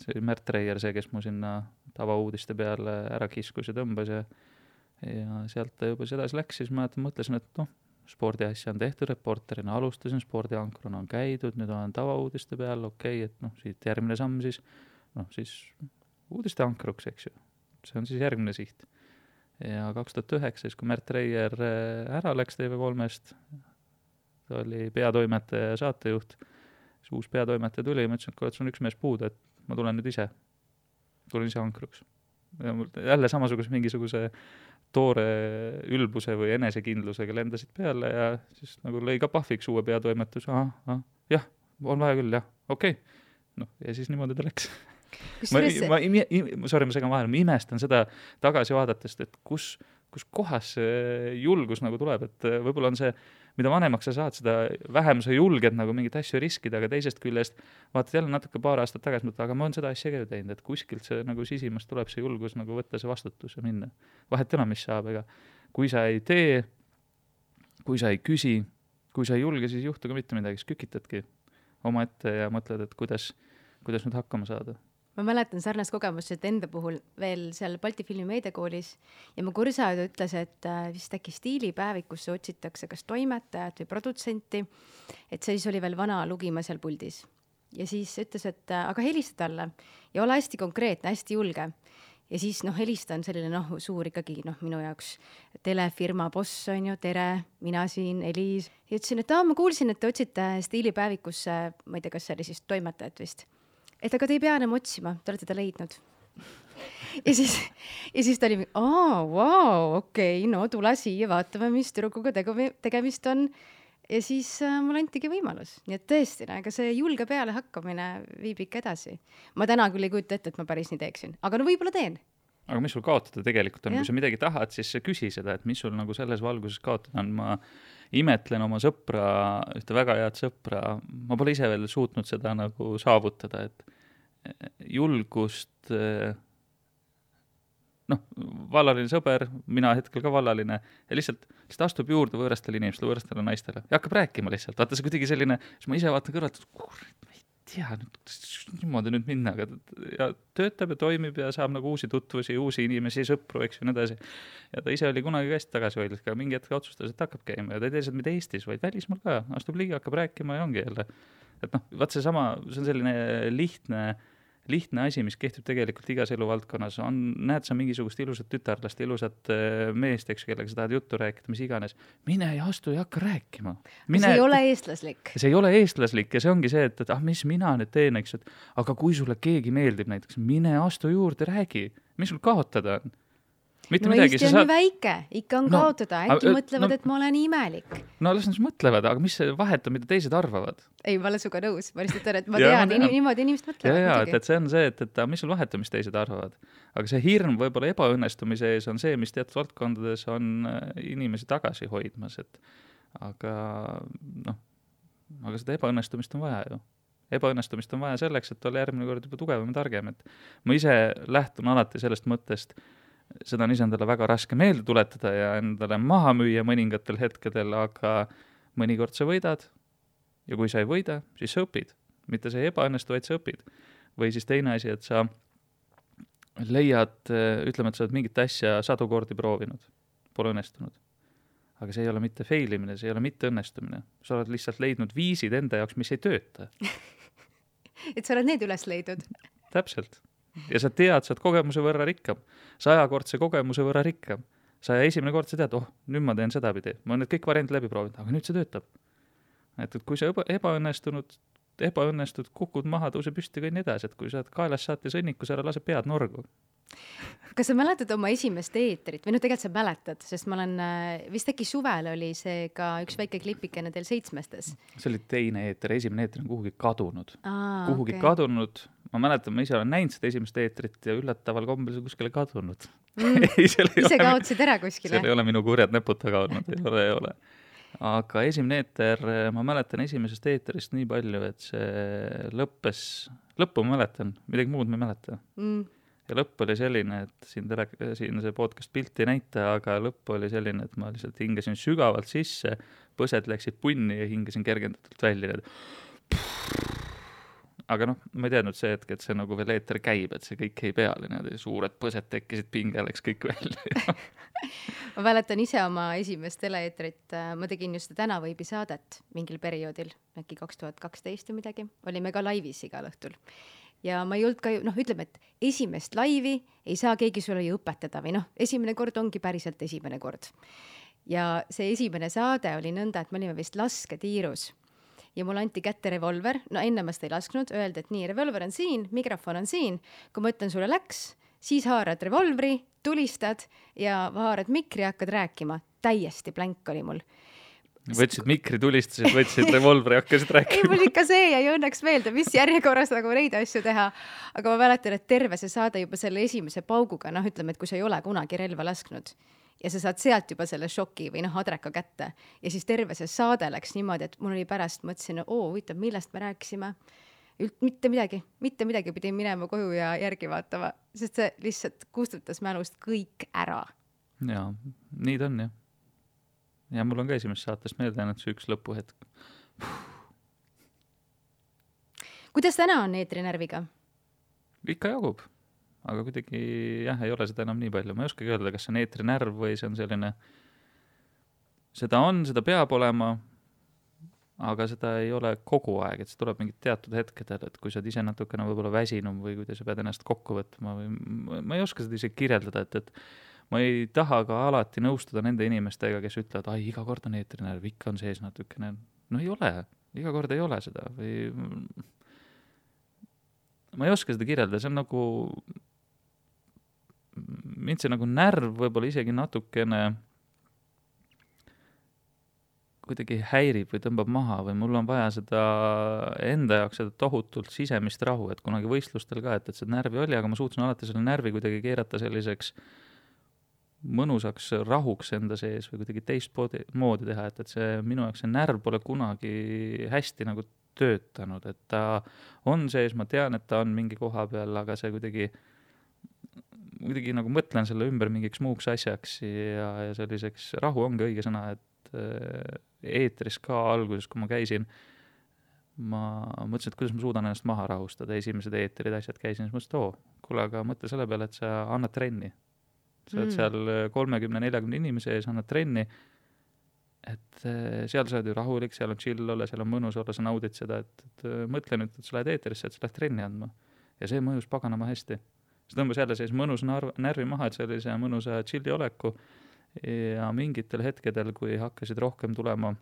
See oli Märt Reier, see, kes mu sinna tavauudiste peale ära kiskus ja tõmbas ja sealt ta juba sedasi läks, siis ma mõtlesin, et spordiasja on tehtud reporterina, alustasin spordiankruna, on käidud, nüüd olen tavauudiste peal, okei, et siit järgmine samm siis, siis uudiste ankruks, eks ju. See on siis järgmine siht. Ja 2009, kui Märt Reier ära läks TV3-st, ta oli peatoimetaja ja saatejuht, siis uus peatoimetaja tuli ja ma ütlesin, et sul on üks mees puudu, et ma tulen nüüd ise. Tulen ise ankruks. Ja jälle samasuguse mingisuguse toore ülbuse või enesekindlusega lendasid peale ja siis nagu lõi ka pahviks uue peatoimetus. Jah, on vaja küll, jah, okei. Ja siis niimoodi ta läks. Ma segan vahel, ma imestan seda tagasi vaadatest, et kus kohas see julgus nagu tuleb, et võib-olla on see, mida vanemaks sa saad, seda vähem sa julged nagu mingit asju riskida, aga teisest küljest vaatad jälle natuke paar aastat tagasi, aga ma olen seda asja ka ju teinud, et kuskilt see nagu sisimast tuleb see julgus nagu võtta see vastutus ja minna. Vahet enam, mis saab, ega kui sa ei tee, kui sa ei küsi, kui sa ei julge, siis juhtu ka mitte midagi, siis kükitadki oma ette ja mõtled, et kuidas nüüd hakkama saada. Ma mäletan sarnast kogemust, et enda puhul veel seal Balti Filmi meediakoolis ja mu kursaajad ütles, et vist äkki stiilipäevikusse otsitakse kas toimetajat või produtsenti, et see siis oli veel vana lugima seal puldis. Ja siis ütles, et aga helista talle ja ole hästi konkreetne, hästi julge. Ja siis helista on selline suur ikkagi minu jaoks telefirma boss on ju, tere, mina siin, Eliis. Ja ütlesin, et ma kuulsin, et te otsite stiilipäevikusse, ma ei tea, kas see oli siis toimetajat vist. Et aga te ei pea enam otsima, te olete ta leidnud. Ja siis ta oli, okei, tule siia, vaatame, mis tüdrukuga tegemist on. Ja siis mul antigi võimalus. Nii et tõesti, aga see julge peale hakkamine viib ikka edasi. Ma täna küll ei kujuta ette, et ma päris nii teeksin, aga võib-olla teen. Aga mis sul kaotada tegelikult on? Ja. Kui sa midagi tahad, siis küsi seda, et mis sul nagu selles valguses kaotada on. Ma imetlen oma sõpra, ühte väga head sõpra. Ma pole ise veel suutnud seda nagu saavutada, julgust, vallaline sõber, mina hetkel ka vallaline, ja lihtsalt astub juurde võõrastele inimestele, võõrastele naistele ja hakkab rääkima lihtsalt. Vaata, see kuidagi selline, siis ma ise vaatan kõrvalt, ma ei tea, niimoodi nüüd minna, ja töötab ja toimib ja saab nagu uusi tutvusi, uusi inimesi, sõpru, eks ju, nii edasi. Ja ta ise oli kunagi ka hästi tagasihoidlik, aga mingi hetk otsustas, et hakkab käima ja ta ei tee seda mitte Eestis, vaid välismaal ka. Astub ligi, hakkab rääkima ja ongi jälle. Et vaat see on selline lihtne asi, mis kehtib tegelikult igas eluvaldkonnas. Näed sa mingisugust ilusat tütarlast, ilusat meest, eks, kellega sa tahad juttu rääkida, mis iganes. Mine ja astu ja hakka rääkima. See ei ole eestlaslik. See ei ole eestlaslik ja see ongi see, et mis mina nüüd teen, eks, aga kui sulle keegi meeldib näiteks, mine astu juurde, räägi. Mis sul kaotada on? Mitte midagi, Eesti on nii väike, ikka on kaotada, äkki mõtlevad, et ma olen imelik. No las nad mõtlevad, aga mis see vahet on, mida teised arvavad? Ei, ma olen suga nõus, ma lihtsalt olen, et ma tean, niimoodi inimesed mõtlevad. Ja, et see on see, et mis sul vahet on, mis teised arvavad. Aga see hirm võib-olla ebaõnnestumise ees on see, mis teatud valdkondades on inimesi tagasi hoidmas, aga seda ebaõnnestumist on vaja ju. Ebaõnnestumist on vaja selleks, et olla järgmine kord juba tugevam ja targem. Et ma ise lähtun alati sellest mõttest, seda on ise endale väga raske meelde tuletada ja endale maha müüa mõningatel hetkedel, aga mõnikord sa võidad ja kui sa ei võida, siis sa õpid. Mitte sa ei ebaõnnestu, vaid sa õpid. Või siis teine asi, et sa leiad, ütleme, et sa oled mingit asja 100 kordi proovinud, pole õnnestunud. Aga see ei ole mitte failimine, see ei ole mitte õnnestumine. Sa oled lihtsalt leidnud viisid enda jaoks, mis ei tööta. Et sa oled need üles leidnud. Täpselt. Ja sa tead, sa oled kogemuse võrra rikkam. 100-kordse kogemuse võrra rikkam. Sa esimene kord sa tead, nüüd ma teen seda pidi. Ma olen need kõik variandid läbi proovinud, aga nüüd see töötab. Et kui sa ebaõnnestud, kukud maha, tõuse püsti ka nii edasi, et kui sa oled kaelas saate sõnnikus, ära lase pead norgu. Kas sa mäletad oma esimest eetrit? Või tegelikult sa mäletad, sest ma olen, vist äkki suvel oli see ka üks väike klipikene teil 7-stes. See oli teine eeter, esimene eeter on kuhugi kadunud. Kadunud. Ma mäletan, ma ise olen näinud seda esimest eetrit ja üllataval kombel see kuskile kadunud. Ise kaotsid ära kuskile? Seal ei ole minu kurjad nepud taga olnud, ei ole. Aga esimene eeter, ma mäletan esimesest eeterist nii palju, et see lõppu ma mäletan, midagi muud ma ei mäleta. Ja lõpp oli selline, et siin see podcast pilti ei näita, aga lõpp oli selline, et ma lihtsalt hingasin sügavalt sisse, põsed läksid punni ja hingasin kergendatult välja. Aga ma ei teadnud see hetk, et see nagu veel eeter käib, et see kõik ei peale, suured põsed tekkisid, pinge läks kõik välja. Ma mäletan ise oma esimest teleeetrit, ma tegin just Tänavõibi saadet mingil perioodil, äkki 2012 või midagi, olime ka laivis igal õhtul. Ja ma ei olnud ka, ütleme, et esimest laivi ei saa keegi sulle ju õpetada või esimene kord ongi päriselt esimene kord. Ja see esimene saade oli nõnda, et me olime vist lasketiirus ja mul anti kätte revolver, enne ma seda ei lasknud, öeldi, et nii, revolver on siin, mikrofon on siin, kui ma ütlen sulle läks, siis haarad revolvri, tulistad ja haarad mikri ja hakkad rääkima. Täiesti blank oli mul. Võtsid mikri, tulistasid, võtsid revolvri ja hakkasid rääkima. Ei, mul ikka see ja õnneks meelde, mis järjekorras nagu neid asju teha. Aga ma mäletan, et terve see saade juba selle esimese pauguga, ütleme, et kui sa ei ole kunagi relva lasknud ja sa saad sealt juba selle šoki või adreka kätte ja siis terve see saade läks niimoodi, et mul oli pärast, mõtlesin, huvitav, millest me rääkisime. Mitte midagi pidin minema koju ja järgi vaatama, sest see lihtsalt kustutas mälust kõik ära. Jaa, nii ta on jah. Ja mul on ka esimest saatest meelde jäänud see üks lõpuhetk. Kuidas täna on eetrinärviga? Ikka jagub, aga kuidagi ei ole seda enam nii palju. Ma ei oskagi öelda, kas see on eetrinärv või see on selline, seda peab olema, aga seda ei ole kogu aeg, et see tuleb mingid teatud hetkedel, et kui sa ise natukene võib-olla väsinum või kui sa pead ennast kokku võtma või ma ei oska seda isegi kirjeldada, et ma ei taha ka alati nõustuda nende inimestega, kes ütlevad, iga kord on eetrinärv, ikka on sees natukene. Ei ole, iga kord ei ole seda. Või ma ei oska seda kirjeldada, see on nagu, mind see nagu närv võib-olla isegi natukene kuidagi häirib või tõmbab maha või mul on vaja seda enda jaoks seda tohutult sisemist rahu, et kunagi võistlustel ka, et see närvi oli, aga ma suutsin alati selle närvi kuidagi keerata selliseks mõnusaks rahuks enda sees või kuidagi teist moodi teha, et see minu jaoks see närv pole kunagi hästi nagu töötanud, et ta on sees, ma tean, et ta on mingi koha peal, aga see kuidagi nagu mõtlen selle ümber mingiks muuks asjaks ja selliseks, rahu ongi õige sõna, et eetris ka alguses, kui ma käisin, ma mõtlesin, et kuidas ma suudan ennast maha rahustada, esimesed eetrid asjad käisin, siis mõtlesin, kuule, aga mõtle selle peale, et sa annad trenni. Sa oled seal 30-40 inimese ees, annad trenni, et seal sa oled ju rahulik, seal on chill olla, seal on mõnus olla, sa naudid seda, et mõtle nüüd, et sa lähed eetrisse, et sa lähed trenni andma. Ja see mõjus paganama hästi. See tõmbas jälle sees mõnus närvi maha, et sellise mõnusa chilli oleku ja mingitel hetkedel, kui hakkasid rohkem tulema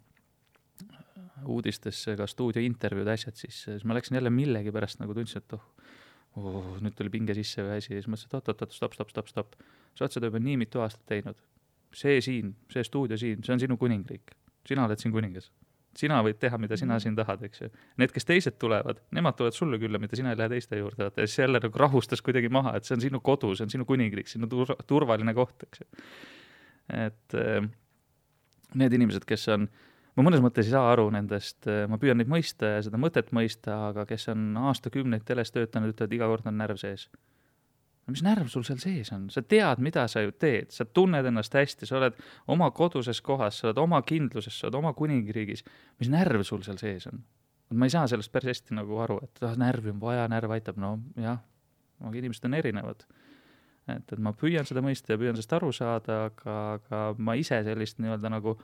uudistesse ka stuudiointervjuud asjad, siis ma läksin jälle millegi pärast nagu tundsin, et nüüd tuli pinge sisse või asi ja siis mõtlesin, et stopp. Sa oled seda juba nii mitu aastat teinud. See stuudio siin, see on sinu kuningriik. Sina oled siin kuningas. Sina võid teha, mida sina siin tahad, eks ju. Need, kes teised tulevad, nemad tulevad sulle külla, mida sina ei lähe teiste juurde. Ja siis jälle nagu rahustas kuidagi maha, et see on sinu kodu, see on sinu kuningriik, sinu turvaline koht, eks ju. Et need inimesed, kes on, ma mõnes mõttes ei saa aru nendest, ma püüan neid mõista ja seda mõtet mõista, aga kes on aastakümneid teles töötanud, ütlevad, iga kord on närv sees. No mis närv sul seal sees on? Sa tead, mida sa ju teed, sa tunned ennast hästi, sa oled oma koduses kohas, sa oled oma kindluses, sa oled oma kuningriigis. Mis närv sul seal sees on? Ma ei saa sellest päris hästi nagu aru, et närvi on vaja, närv aitab, no jah, aga inimesed on erinevad. Et ma püüan seda mõista ja püüan sellest aru saada, aga ma ise sellist nii-öelda nagu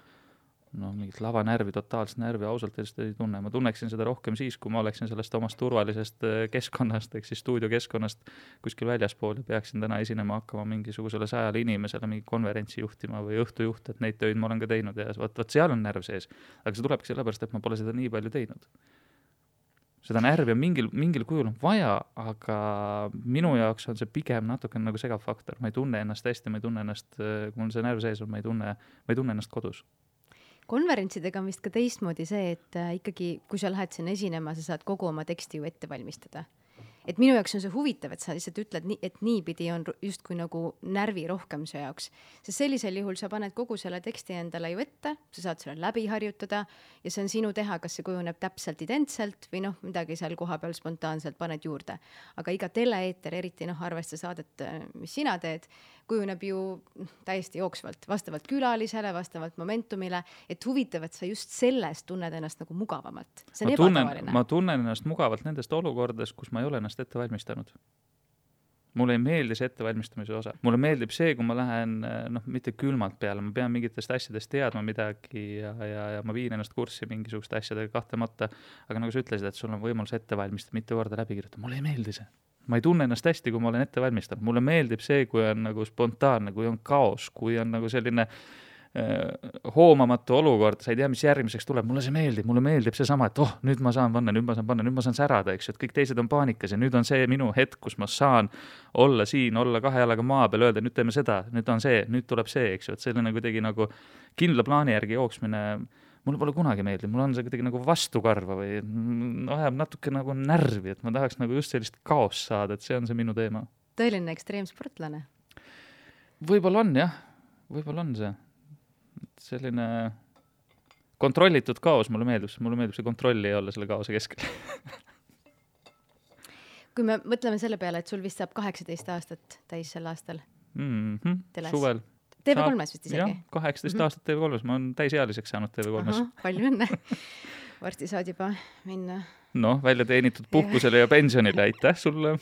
mingit lavanärvi, totaalset närvi ausalt ei tunne. Ma tunneksin seda rohkem siis, kui ma oleksin sellest omast turvalisest keskkonnast, ehk siis stuudiokeskkonnast kuskil väljaspool ja peaksin täna esinema hakkama mingisugusele 100 inimesele mingi konverentsi juhtima või õhtujuht, et neid töid ma olen ka teinud ja võt seal on närv sees. Aga see tulebki sellepärast, et ma pole seda nii palju teinud. Seda närvi on mingil kujul on vaja, aga minu jaoks on see pigem natuke nagu segav faktor. Ma ei tunne ennast hästi, ma ei tunne ennast, kui mul see närv sees on, ma ei tunne ennast kodus. Konverentsidega on vist ka teistmoodi see, et ikkagi, kui sa lähed sinna esinema, sa saad kogu oma teksti ju ette valmistada. Et minu jaoks on see huvitav, et sa lihtsalt ütled, et niipidi on justkui nagu närvi rohkem see jaoks. Sest sellisel juhul sa paned kogu selle teksti endale ju ette, sa saad selle läbi harjutada ja see on sinu teha, kas see kujuneb täpselt identselt või midagi seal koha peal spontaanselt paned juurde. Aga iga teleeeter, eriti arvesta saadet, mis sina teed, kujuneb ju täiesti jooksvalt, vastavalt külalisele, vastavalt momentumile, et huvitav, et sa just sellest tunned ennast nagu mugavamalt. See on ebatavaline. Ma tunnen ennast mugavalt nendest olukordades, kus ma ei ole ennast ette valmistanud. Mulle ei meeldi see ettevalmistamise osa. Mulle meeldib see, kui ma lähen mitte külmalt peale, ma pean mingitest asjadest teadma midagi ja ma viin ennast kurssi mingisuguste asjadega kahtlemata, aga nagu sa ütlesid, et sul on võimalus ette valmistada, mitte korda läbi kirjutada. Mulle ei meeldi see. Ma ei tunne ennast hästi, kui ma olen ette valmistanud. Mulle meeldib see, kui on nagu spontaanne, kui on kaos, kui on nagu selline hoomamatu olukord, sa ei tea, mis järgmiseks tuleb. Mulle meeldib see sama, et nüüd ma saan panna, nüüd ma saan särada, eks, et kõik teised on paanikas ja nüüd on see minu hetk, kus ma saan olla siin, olla 2 jalaga maa peal, öelda, nüüd teeme seda, nüüd on see, nüüd tuleb see, eks ju, et selline kuidagi nagu kindla plaani järgi jooksmine mulle pole kunagi meeldib, mul on see kuidagi nagu vastukarva või ajab natuke nagu närvi, et ma tahaks nagu just sellist kaos saada, et see on see minu teema. Tõeline ekstreemsportlane? Võib-olla on, jah. Võib-olla on see. Selline kontrollitud kaos mulle meeldib see kontrolli ei olla selle kaose keskel. Kui me mõtleme selle peale, et sul vist saab 18 aastat täis sel aastal suvel. TV3-s vist isegi? Jah, 18 aastat TV3-s, ma olen täisealiseks saanud TV3-s. Palju õnne. Varsti saad juba minna. Välja teenitud puhkusele ja pensionile, aitäh sulle.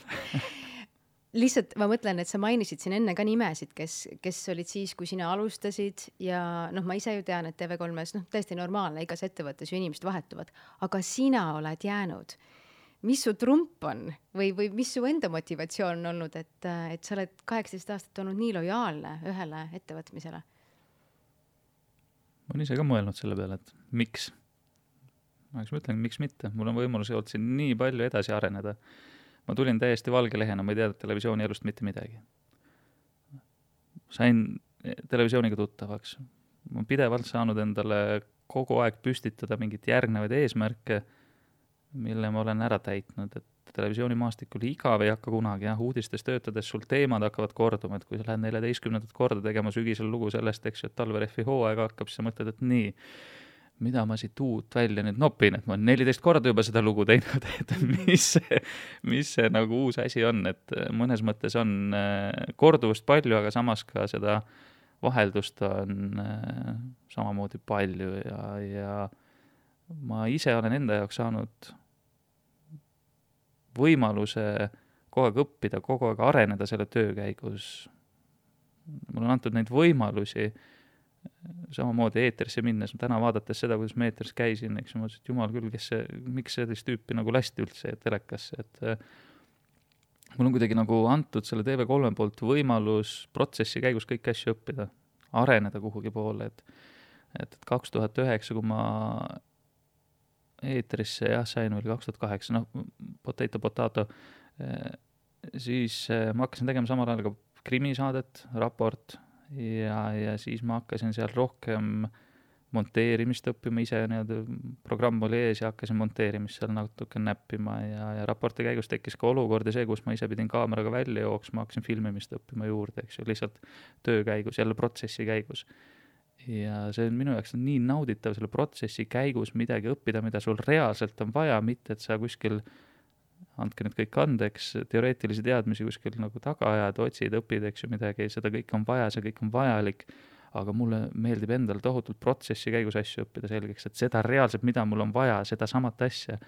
Lihtsalt ma mõtlen, et sa mainisid siin enne ka nimesid, kes olid siis, kui sina alustasid ja ma ise ju tean, et TV3-s täiesti normaalne, igas ettevõttes ju inimesed vahetuvad, aga sina oled jäänud. Mis su trump on või mis su enda motivatsioon on olnud, et sa oled 18 aastat olnud nii lojaalne ühele ettevõtmisele? Ma olen ise ka mõelnud selle peale, et miks? Ma ütlen, miks mitte. Mul on võimalus olnud siin nii palju edasi areneda. Ma tulin täiesti valge lehena, ma ei teadnud televisiooni elust mitte midagi. Sain televisiooniga tuttavaks. Ma pidevalt saanud endale kogu aeg püstitada mingit järgnevaid eesmärke, mille ma olen ära täitnud, et televisioonimaastikul igav ei hakka kunagi, uudistes töötades sul teemad hakkavad korduma, et kui sa lähed 14. korda tegema sügisel lugu sellest, eks ju, et talverehvi hooaega hakkab, siis sa mõtled, et nii, mida ma siit uut välja nüüd nopin, et ma olen 14 korda juba seda lugu teinud, et mis see nagu uus asi on, et mõnes mõttes on korduvust palju, aga samas ka seda vaheldust on samamoodi palju ja ma ise olen enda jaoks saanud võimaluse kogu aeg õppida, kogu aeg areneda selle töö käigus. Mul on antud neid võimalusi samamoodi eetrisse minnes, täna vaadates seda, kuidas ma eetris käisin, eks ma mõtlesin, et jumal küll, miks sellist tüüpi nagu lasti üldse telekasse, et mul on kuidagi nagu antud selle TV3 poolt võimalus protsessi käigus kõiki asju õppida, areneda kuhugi poole, et 2009, kui ma eetrisse sain, oli 2008, potato, siis ma hakkasin tegema samal ajal ka krimisaadet, raport, ja siis ma hakkasin seal rohkem monteerimist õppima ise, programm oli ees ja hakkasin monteerimist seal natuke näppima ja raporti käigus tekkis ka olukordi see, kus ma ise pidin kaameraga välja jooksma, hakkasin filmimist õppima juurde, eks ju, lihtsalt töö käigus, jälle protsessi käigus. Ja see on minu jaoks nii nauditav selle protsessi käigus midagi õppida, mida sul reaalselt on vaja, mitte et sa kuskil andke nüüd kõik andeks, teoreetilisi teadmisi kuskil nagu taga ajad, otsid, õpid, eks ju midagi, seda kõik on vaja, see kõik on vajalik, aga mulle meeldib endal tohutult protsessi käigus asju õppida selgeks, et seda reaalselt, mida mul on vaja, seda samat asja.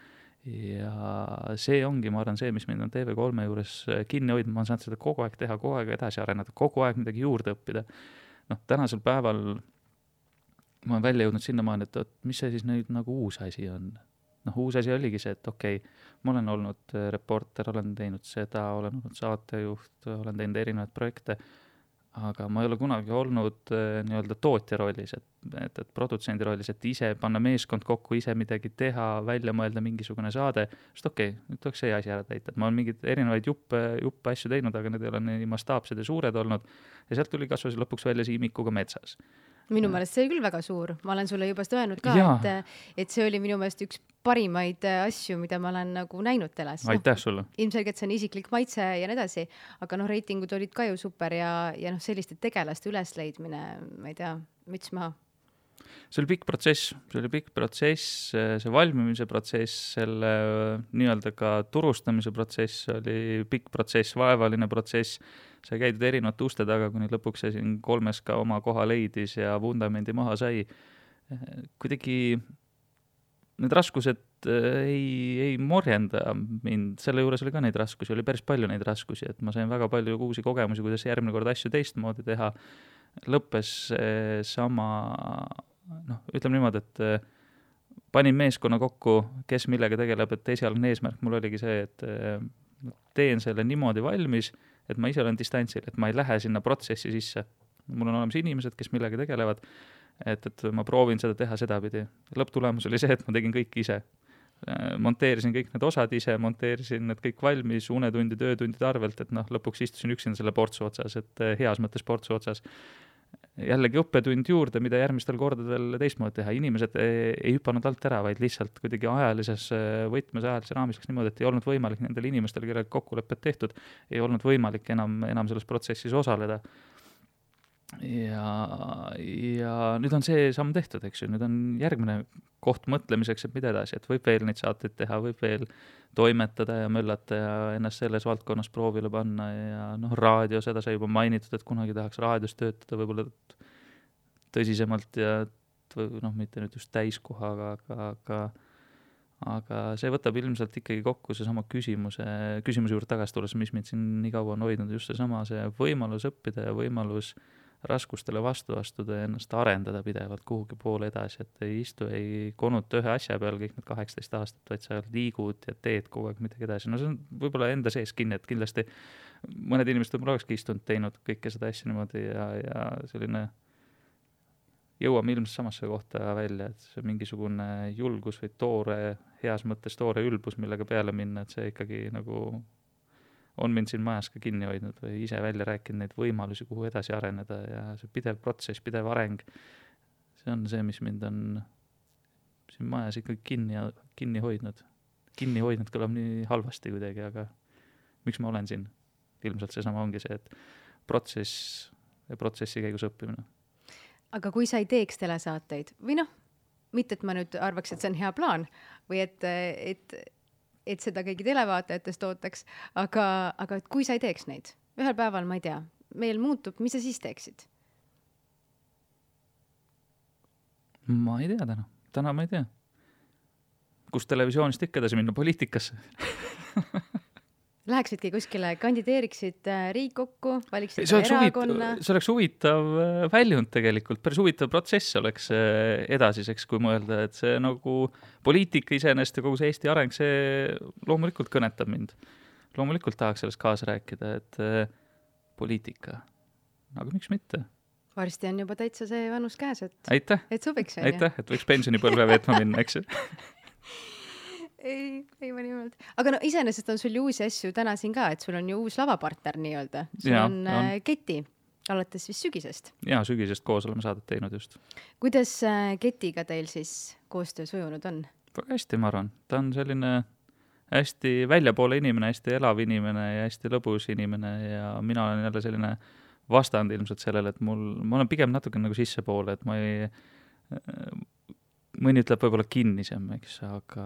Ja see ongi, ma arvan, see, mis mind on TV3 juures kinni hoidnud, ma olen saanud seda kogu aeg teha, kogu aeg edasi areneda, kogu aeg midagi juurde õppida. Tänasel päeval ma olen välja jõudnud sinnamaani, et mis see siis nüüd nagu uus asi on. Uus asi oligi see, et okei, ma olen olnud reporter, olen teinud seda, olen olnud saatejuht, olen teinud erinevaid projekte, aga ma ei ole kunagi olnud nii-öelda tootja rollis, et produtsendi rollis, et ise panna meeskond kokku, ise midagi teha, välja mõelda mingisugune saade, sest okei, nüüd tuleks see asi ära täita, et ma olen mingid erinevaid juppe asju teinud, aga need ei ole nii mastaapsed ja suured olnud ja sealt tuli kasvas lõpuks välja Siimikuga metsas. Minu meelest see oli küll väga suur. Ma olen sulle juba öelnud ka, et see oli minu meelest üks parimaid asju, mida ma olen nagu näinud teles. Aitäh sulle. Ilmselgelt see on isiklik maitse ja nii edasi, aga reitingud olid ka ju super ja selliste tegelaste ülesleidmine, ma ei tea, müts maha. See oli pikk protsess, see valmimise protsess, selle nii-öelda ka turustamise protsess oli pikk protsess, vaevaline protsess, sai käidud erinevate uste taga, kuni lõpuks see siin 3 ka oma koha leidis ja vundamendi maha sai. Kuidagi need raskused ei morjenda mind, selle juures oli ka neid raskusi, oli päris palju neid raskusi, et ma sain väga palju uusi kogemusi, kuidas järgmine kord asju teistmoodi teha. Lõppes sama, ütleme niimoodi, et panin meeskonna kokku, kes millega tegeleb, et esialgne eesmärk mul oligi see, et teen selle niimoodi valmis, et ma ise olen distantsil, et ma ei lähe sinna protsessi sisse. Mul on olemas inimesed, kes millega tegelevad, et ma proovin seda teha sedapidi. Lõpptulemus oli see, et ma tegin kõik ise. Monteerisin kõik need osad ise, monteerisin need kõik valmis unetundide, öötundide arvelt, et lõpuks istusin üksinda selle portsu otsas, et heas mõttes portsu otsas. Jällegi õppetund juurde, mida järgmistel kordadel teistmoodi teha. Inimesed ei hüpanud alt ära, vaid lihtsalt kuidagi ajalises võtmes, ajalises raamis niimoodi, et ei olnud võimalik nendel inimestel, kellega kokkulepped tehtud, ei olnud võimalik enam selles protsessis osaleda. Ja nüüd on see samm tehtud, eks ju, nüüd on järgmine koht mõtlemiseks, et mida edasi, et võib veel neid saateid teha, võib veel toimetada ja möllata ja ennast selles valdkonnas proovile panna ja raadio, seda sai juba mainitud, et kunagi tahaks raadios töötada võib-olla tõsisemalt ja mitte nüüd just täiskohaga, aga see võtab ilmselt ikkagi kokku seesama küsimuse juurde tagasi tulles, mis mind siin nii kaua on hoidnud, just seesama see võimalus õppida ja võimalus raskustele vastu astuda ja ennast arendada pidevalt kuhugi poole edasi, et ei istu, ei konuta ühe asja peal kõik need 18 aastat, vaid sa liigud ja teed kogu aeg midagi edasi. See on võib-olla enda sees kinni, et kindlasti mõned inimesed võib-olla olekski istunud, teinud kõike seda asja niimoodi ja selline jõuame ilmselt samasse kohta välja, et see mingisugune julgus või heas mõttes toore ülbus, millega peale minna, et see ikkagi nagu on mind siin majas ka kinni hoidnud või ise välja rääkinud neid võimalusi, kuhu edasi areneda ja see pidev protsess, pidev areng, see on see, mis mind on siin majas ikkagi kinni hoidnud. Kinni hoidnud kõlab nii halvasti kuidagi, aga miks ma olen siin? Ilmselt seesama ongi see, et protsess ja protsessi käigus õppimine. Aga kui sa ei teeks telesaateid või mitte, et ma nüüd arvaks, et see on hea plaan või et seda kõigi televaatajatest ootaks, aga et kui sa ei teeks neid, ühel päeval, ma ei tea, meil muutub, mis sa siis teeksid? Ma ei tea täna ma ei tea. Kus televisioonist ikka edasi minna, poliitikasse? Läheksidki kuskile, kandideeriksid Riigikokku, valiksid erakonna? See oleks huvitav väljund tegelikult, päris huvitav protsess oleks edasiseks, kui mõelda, et see nagu poliitika iseenesest ja kogu see Eesti areng, see loomulikult kõnetab mind. Loomulikult tahaks sellest kaasa rääkida, et poliitika, aga miks mitte? Varsti on juba täitsa see vanus käes, et sobiks. Aitäh, et võiks pensionipõlve veetma minna, eks ju? ei ma nimelt. Aga no iseenesest on sul ju uusi asju täna siin ka, et sul on ju uus lavapartner nii-öelda. Sul on Keti, alates vist sügisest. Jaa, sügisest koos oleme saadet teinud just. Kuidas Ketiga teil siis koostöö sujunud on? Väga hästi, ma arvan. Ta on selline hästi väljapoole inimene, hästi elav inimene ja hästi lõbus inimene ja mina olen jälle selline vastand ilmselt sellele, et ma olen pigem natuke nagu sissepoole, et ma ei... Mõni ütleb võib-olla kinnisem, eks, aga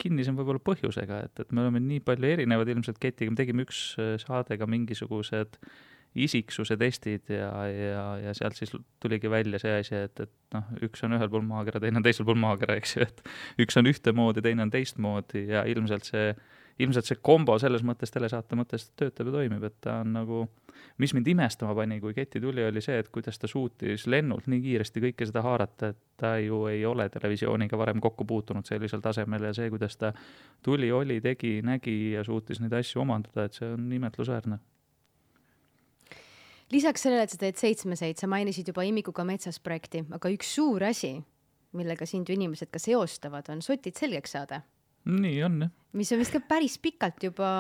kinnisem võib-olla põhjusega, et me oleme nii palju erinevad ilmselt Ketiga, me tegime üks saadega mingisugused isiksuse testid ja sealt siis tuligi välja see asi, et üks on ühel pool maakera, teine on teisel pool maakera, eks ju, et üks on ühtemoodi, teine on teistmoodi ja ilmselt see kombo selles mõttes telesaate mõttes töötab ja toimib, et ta on nagu, mis mind imestama pani, kui Keti tuli, oli see, et kuidas ta suutis lennult nii kiiresti kõike seda haarata, et ta ju ei ole televisiooniga varem kokku puutunud sellisel tasemel ja see, kuidas ta tuli, tegi, nägi ja suutis neid asju omandada, et see on imetlusväärne. Lisaks sellele, et sa teed 7-7, sa mainisid juba Imikuga metsas projekti, aga üks suur asi, millega sind ju inimesed ka seostavad, on Sotid selgeks saada. Nii on, jah. Mis on vist ka päris pikalt juba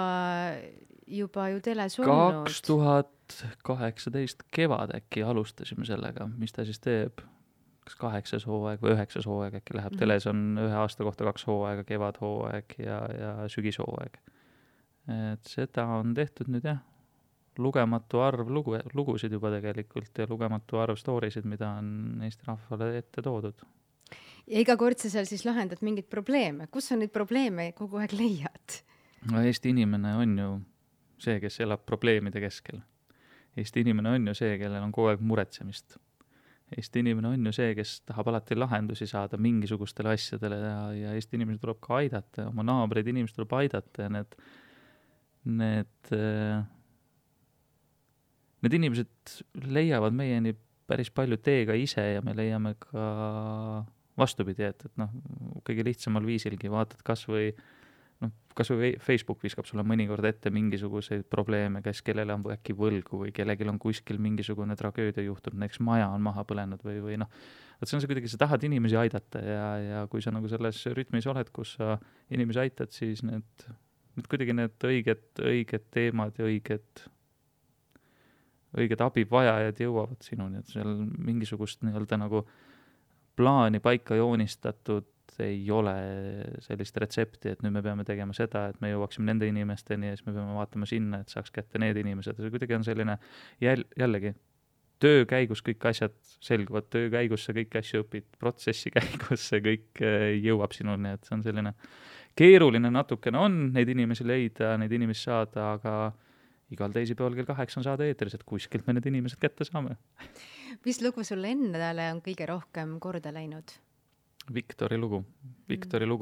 ju teles olnud. 2018 kevad äkki alustasime sellega, mis ta siis teeb, kas 8. hooaeg või 9. hooaeg äkki läheb. Teles on 1 aasta kohta 2 hooaega, kevadhooaeg ja sügishooaeg. Et seda on tehtud nüüd jah, lugematu arv lugusid juba tegelikult ja lugematu arv storysid, mida on Eesti rahvale ette toodud. Ja iga kord sa seal siis lahendad mingid probleeme. Kus on neid probleeme kogu aeg leiad? No Eesti inimene on ju see, kes elab probleemide keskel. Eesti inimene on ju see, kellel on kogu aeg muretsemist. Eesti inimene on ju see, kes tahab alati lahendusi saada mingisugustele asjadele ja Eesti inimesed tuleb ka aidata, oma naabreid inimesed tuleb aidata ja need inimesed leiavad meieni päris palju teega ise ja me leiame ka vastupidi, et kõige lihtsamal viisilgi vaatad kas või Facebook viskab sulle mõnikord ette mingisuguseid probleeme, kes kellele on äkki võlgu või kellelgi on kuskil mingisugune tragöödia juhtunud, näiteks maja on maha põlenud või et see on see kuidagi, sa tahad inimesi aidata ja kui sa nagu selles rütmis oled, kus sa inimesi aitad, siis need kuidagi need õiged teemad ja õiged abivajajad jõuavad sinuni, et seal mingisugust nii-öelda nagu plaani paika joonistatud ei ole sellist retsepti, et nüüd me peame tegema seda, et me jõuaksime nende inimesteni ja siis me peame vaatama sinna, et saaks kätte need inimesed. See kuidagi on selline jällegi töö käigus kõik asjad selguvad, töö käigus sa kõiki asju õpid, protsessi käigus see kõik jõuab sinuni, et see on selline keeruline natukene on neid inimesi leida, neid inimesi saada, aga igal teisipäeval kell 8 on saada eetris, et kuskilt me need inimesed kätte saame. Mis lugu sulle endale on kõige rohkem korda läinud? Viktori lugu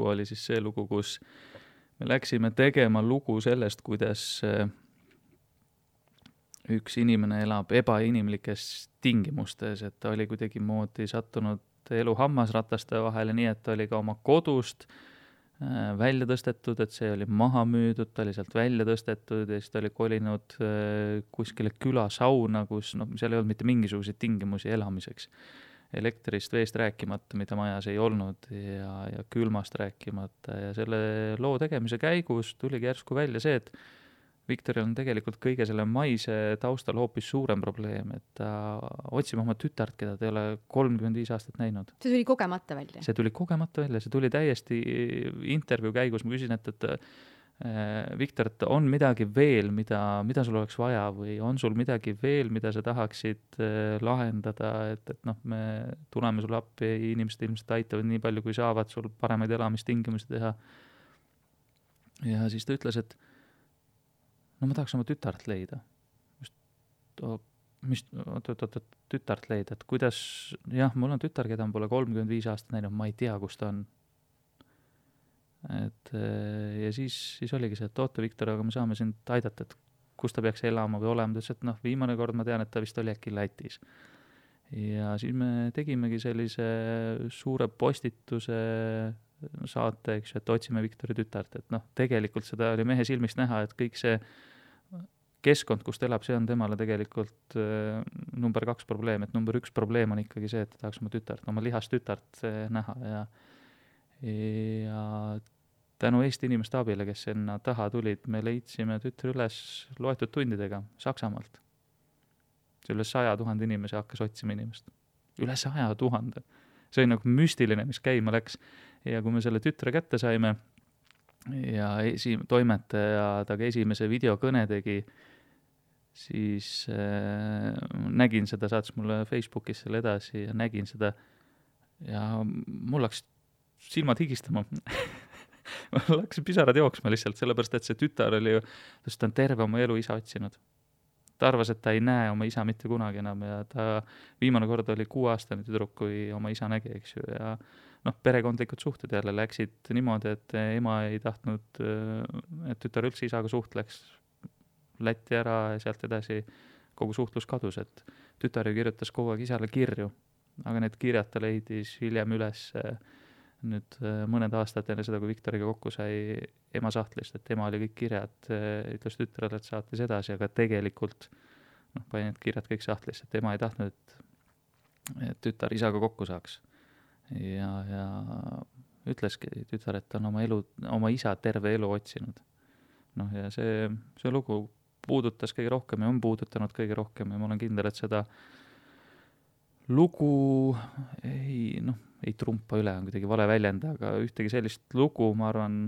oli siis see lugu, kus me läksime tegema lugu sellest, kuidas üks inimene elab ebainimlikes tingimustes, et ta oli kuidagi moodi sattunud elu hammasrataste vahele, nii et ta oli ka oma kodust välja tõstetud, et see oli maha müüdud, ta oli sealt välja tõstetud ja siis ta oli kolinud kuskile külasauna, kus seal ei olnud mitte mingisuguseid tingimusi elamiseks. Elektrist, veest rääkimata, mida majas ei olnud ja külmast rääkimata ja selle loo tegemise käigus tuligi järsku välja see, et Viktoril on tegelikult kõige selle maise taustal hoopis suurem probleem, et ta otsib oma tütart, keda ta ei ole 35 aastat näinud. See tuli kogemata välja? See tuli kogemata välja, see tuli täiesti intervjuu käigus, ma küsin, et Viktor, et on midagi veel, mida sul oleks vaja või on sul midagi veel, mida sa tahaksid lahendada, et noh, me tuleme sulle appi ja inimesed ilmselt aitavad nii palju, kui saavad sul paremaid elamistingimusi teha. Ja siis ta ütles, et no ma tahaks oma tütart leida. Tütart leida, et kuidas, jah, mul on tütar, keda on pole 35 aastat näinud, ma ei tea, kus ta on. Et ja siis oligi see, et oota, Viktor, aga me saame sind aidata, et kus ta peaks elama või olema. Ta ütles, et noh, viimane kord ma tean, et ta vist oli äkki Lätis. Ja siis me tegimegi sellise suure postituse saate, eks ju, et otsime Viktori tütart, et noh, tegelikult seda oli mehe silmist näha, et kõik see keskkond, kus ta elab, see on temale tegelikult number 2 probleem, et number 1 probleem on ikkagi see, et ta tahaks oma tütart, oma lihast tütart näha ja tänu Eesti inimeste abile, kes sinna taha tulid, me leidsime tütre üles loetud tundidega Saksamaalt. See üle 100 000 inimesi hakkas otsima inimest. Üle 100 000. See oli nagu müstiline, mis käima läks. Ja kui me selle tütre kätte saime ja toimetaja taga esimese videokõne tegi, siis nägin seda, saatis mulle Facebookis selle edasi ja nägin seda ja mul läks silmad higistama. Mul läks pisarad jooksma lihtsalt, sellepärast, et see tütar oli ju, ta on terve oma elu isa otsinud. Ta arvas, et ta ei näe oma isa mitte kunagi enam ja ta viimane kord oli 6-aastane tüdruk, kui oma isa nägi, eks ju, ja noh, perekondlikud suhted jälle läksid niimoodi, et ema ei tahtnud, et tütar üldse isaga suhtleks, Lätti ära ja sealt edasi kogu suhtlus kadus, et tütar ju kirjutas kogu aeg isale kirju, aga need kirjad ta leidis hiljem üles nüüd mõned aastad enne seda, kui Viktoriga kokku sai ema sahtlist, et ema oli kõik kirjad, ütles tütrele, et saatis edasi, aga tegelikult noh, pani need kirjad kõik sahtlist, et ema ei tahtnud, et tütar isaga kokku saaks. Ja ütleski tütar, et ta on oma isa terve elu otsinud. Noh, ja see lugu puudutas kõige rohkem ja on puudutanud kõige rohkem ja ma olen kindel, et seda lugu ei trumpa üle, on kuidagi vale väljend, aga ühtegi sellist lugu, ma arvan,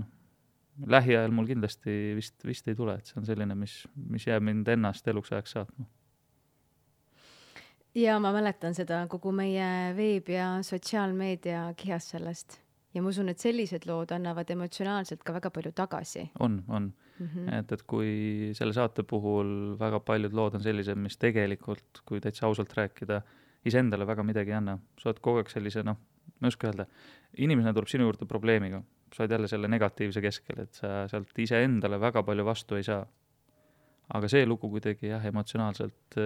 lähiajal mul kindlasti vist ei tule, et see on selline, mis jääb mind ennast eluks ajaks saatma. Ja ma mäletan seda kogu meie veeb- ja sotsiaalmeedia kihas sellest. Ja ma usun, et sellised lood annavad emotsionaalselt ka väga palju tagasi. On. Et kui selle saate puhul väga paljud lood on sellised, mis tegelikult, kui täitsa ausalt rääkida, iseendale väga midagi ei anna. Sa oled kogu aeg sellise, ma ei oska öelda, inimesena tuleb sinu juurde probleemiga. Sa oled jälle selle negatiivse keskel, et sa sealt iseendale väga palju vastu ei saa. Aga see lugu kuidagi emotsionaalselt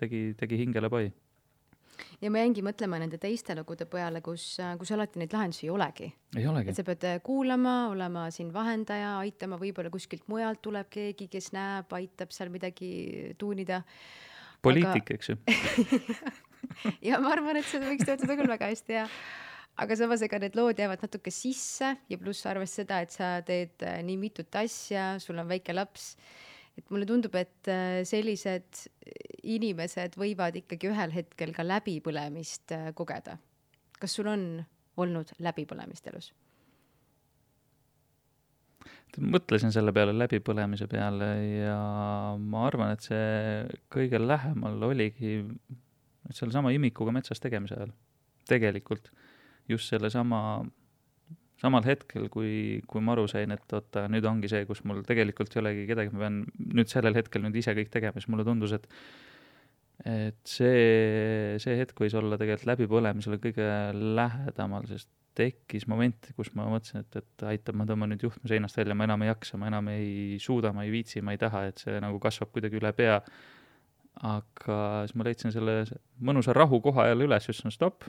tegi hingele pai. Ja ma jäingi mõtlema nende teiste lugude peale, kus alati neid lahendusi ei olegi. Ei olegi. Et sa pead kuulama, olema siin vahendaja, aitama, võib-olla kuskilt mujalt tuleb keegi, kes näeb, aitab seal midagi tuunida. Poliitik, eks ju. Ja ma arvan, et seda võiks töötada küll väga hästi, ja. Aga samas ega need lood jäävad natuke sisse ja pluss arvest seda, et sa teed nii mitut asja, sul on väike laps. Et mulle tundub, et sellised inimesed võivad ikkagi ühel hetkel ka läbipõlemist kogeda. Kas sul on olnud läbipõlemist elus? Mõtlesin selle peale läbipõlemise peale ja ma arvan, et see kõige lähemal oligi selle sama imikuga metsas tegemise ajal. Tegelikult just selle samal hetkel, kui ma aru sain, et oota, nüüd ongi see, kus mul tegelikult ei olegi kedagi, ma pean nüüd sellel hetkel nüüd ise kõik tegema, siis mulle tundus, et see hetk võis olla tegelikult läbipõlemisele kõige lähedamal, sest tekkis moment, kus ma mõtlesin, et aitab, ma tõmban nüüd juhtme seinast välja, ma enam ei jaksa, ma enam ei suuda, ma ei viitsi, ma ei taha, et see nagu kasvab kuidagi üle pea. Aga siis ma leidsin selle mõnusa rahu koha jälle üles, just stopp,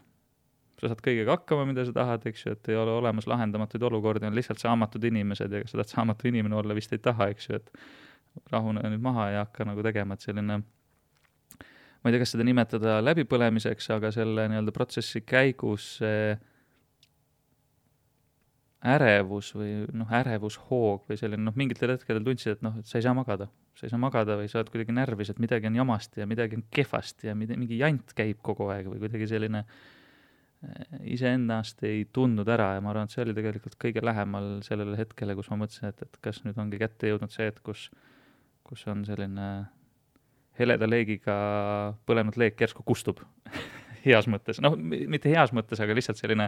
sa saad kõigega hakkama, mida sa tahad, eks ju, et ei ole olemas lahendamatuid olukordi, on lihtsalt saamatud inimesed ja sa tahad saamatu inimene olla, vist ei taha, eks ju, et rahune nüüd maha ja hakka nagu tegema, et selline, ma ei tea, kas seda nimetada läbipõlemiseks, aga selle nii-öelda protsessi käigus ärevus või ärevushoog või selline, mingitel hetkedel tundsid, et et sa ei saa magada või sa oled kuidagi närvis, et midagi on jamasti ja midagi on kehvasti ja mingi jant käib kogu aeg või kuidagi selline iseennast ei tundnud ära ja ma arvan, et see oli tegelikult kõige lähemal sellele hetkele, kus ma mõtlesin, et kas nüüd ongi kätte jõudnud see, et kus on selline heleda leegiga põlenud leek järsku kustub heas mõttes, noh, mitte heas mõttes, aga lihtsalt selline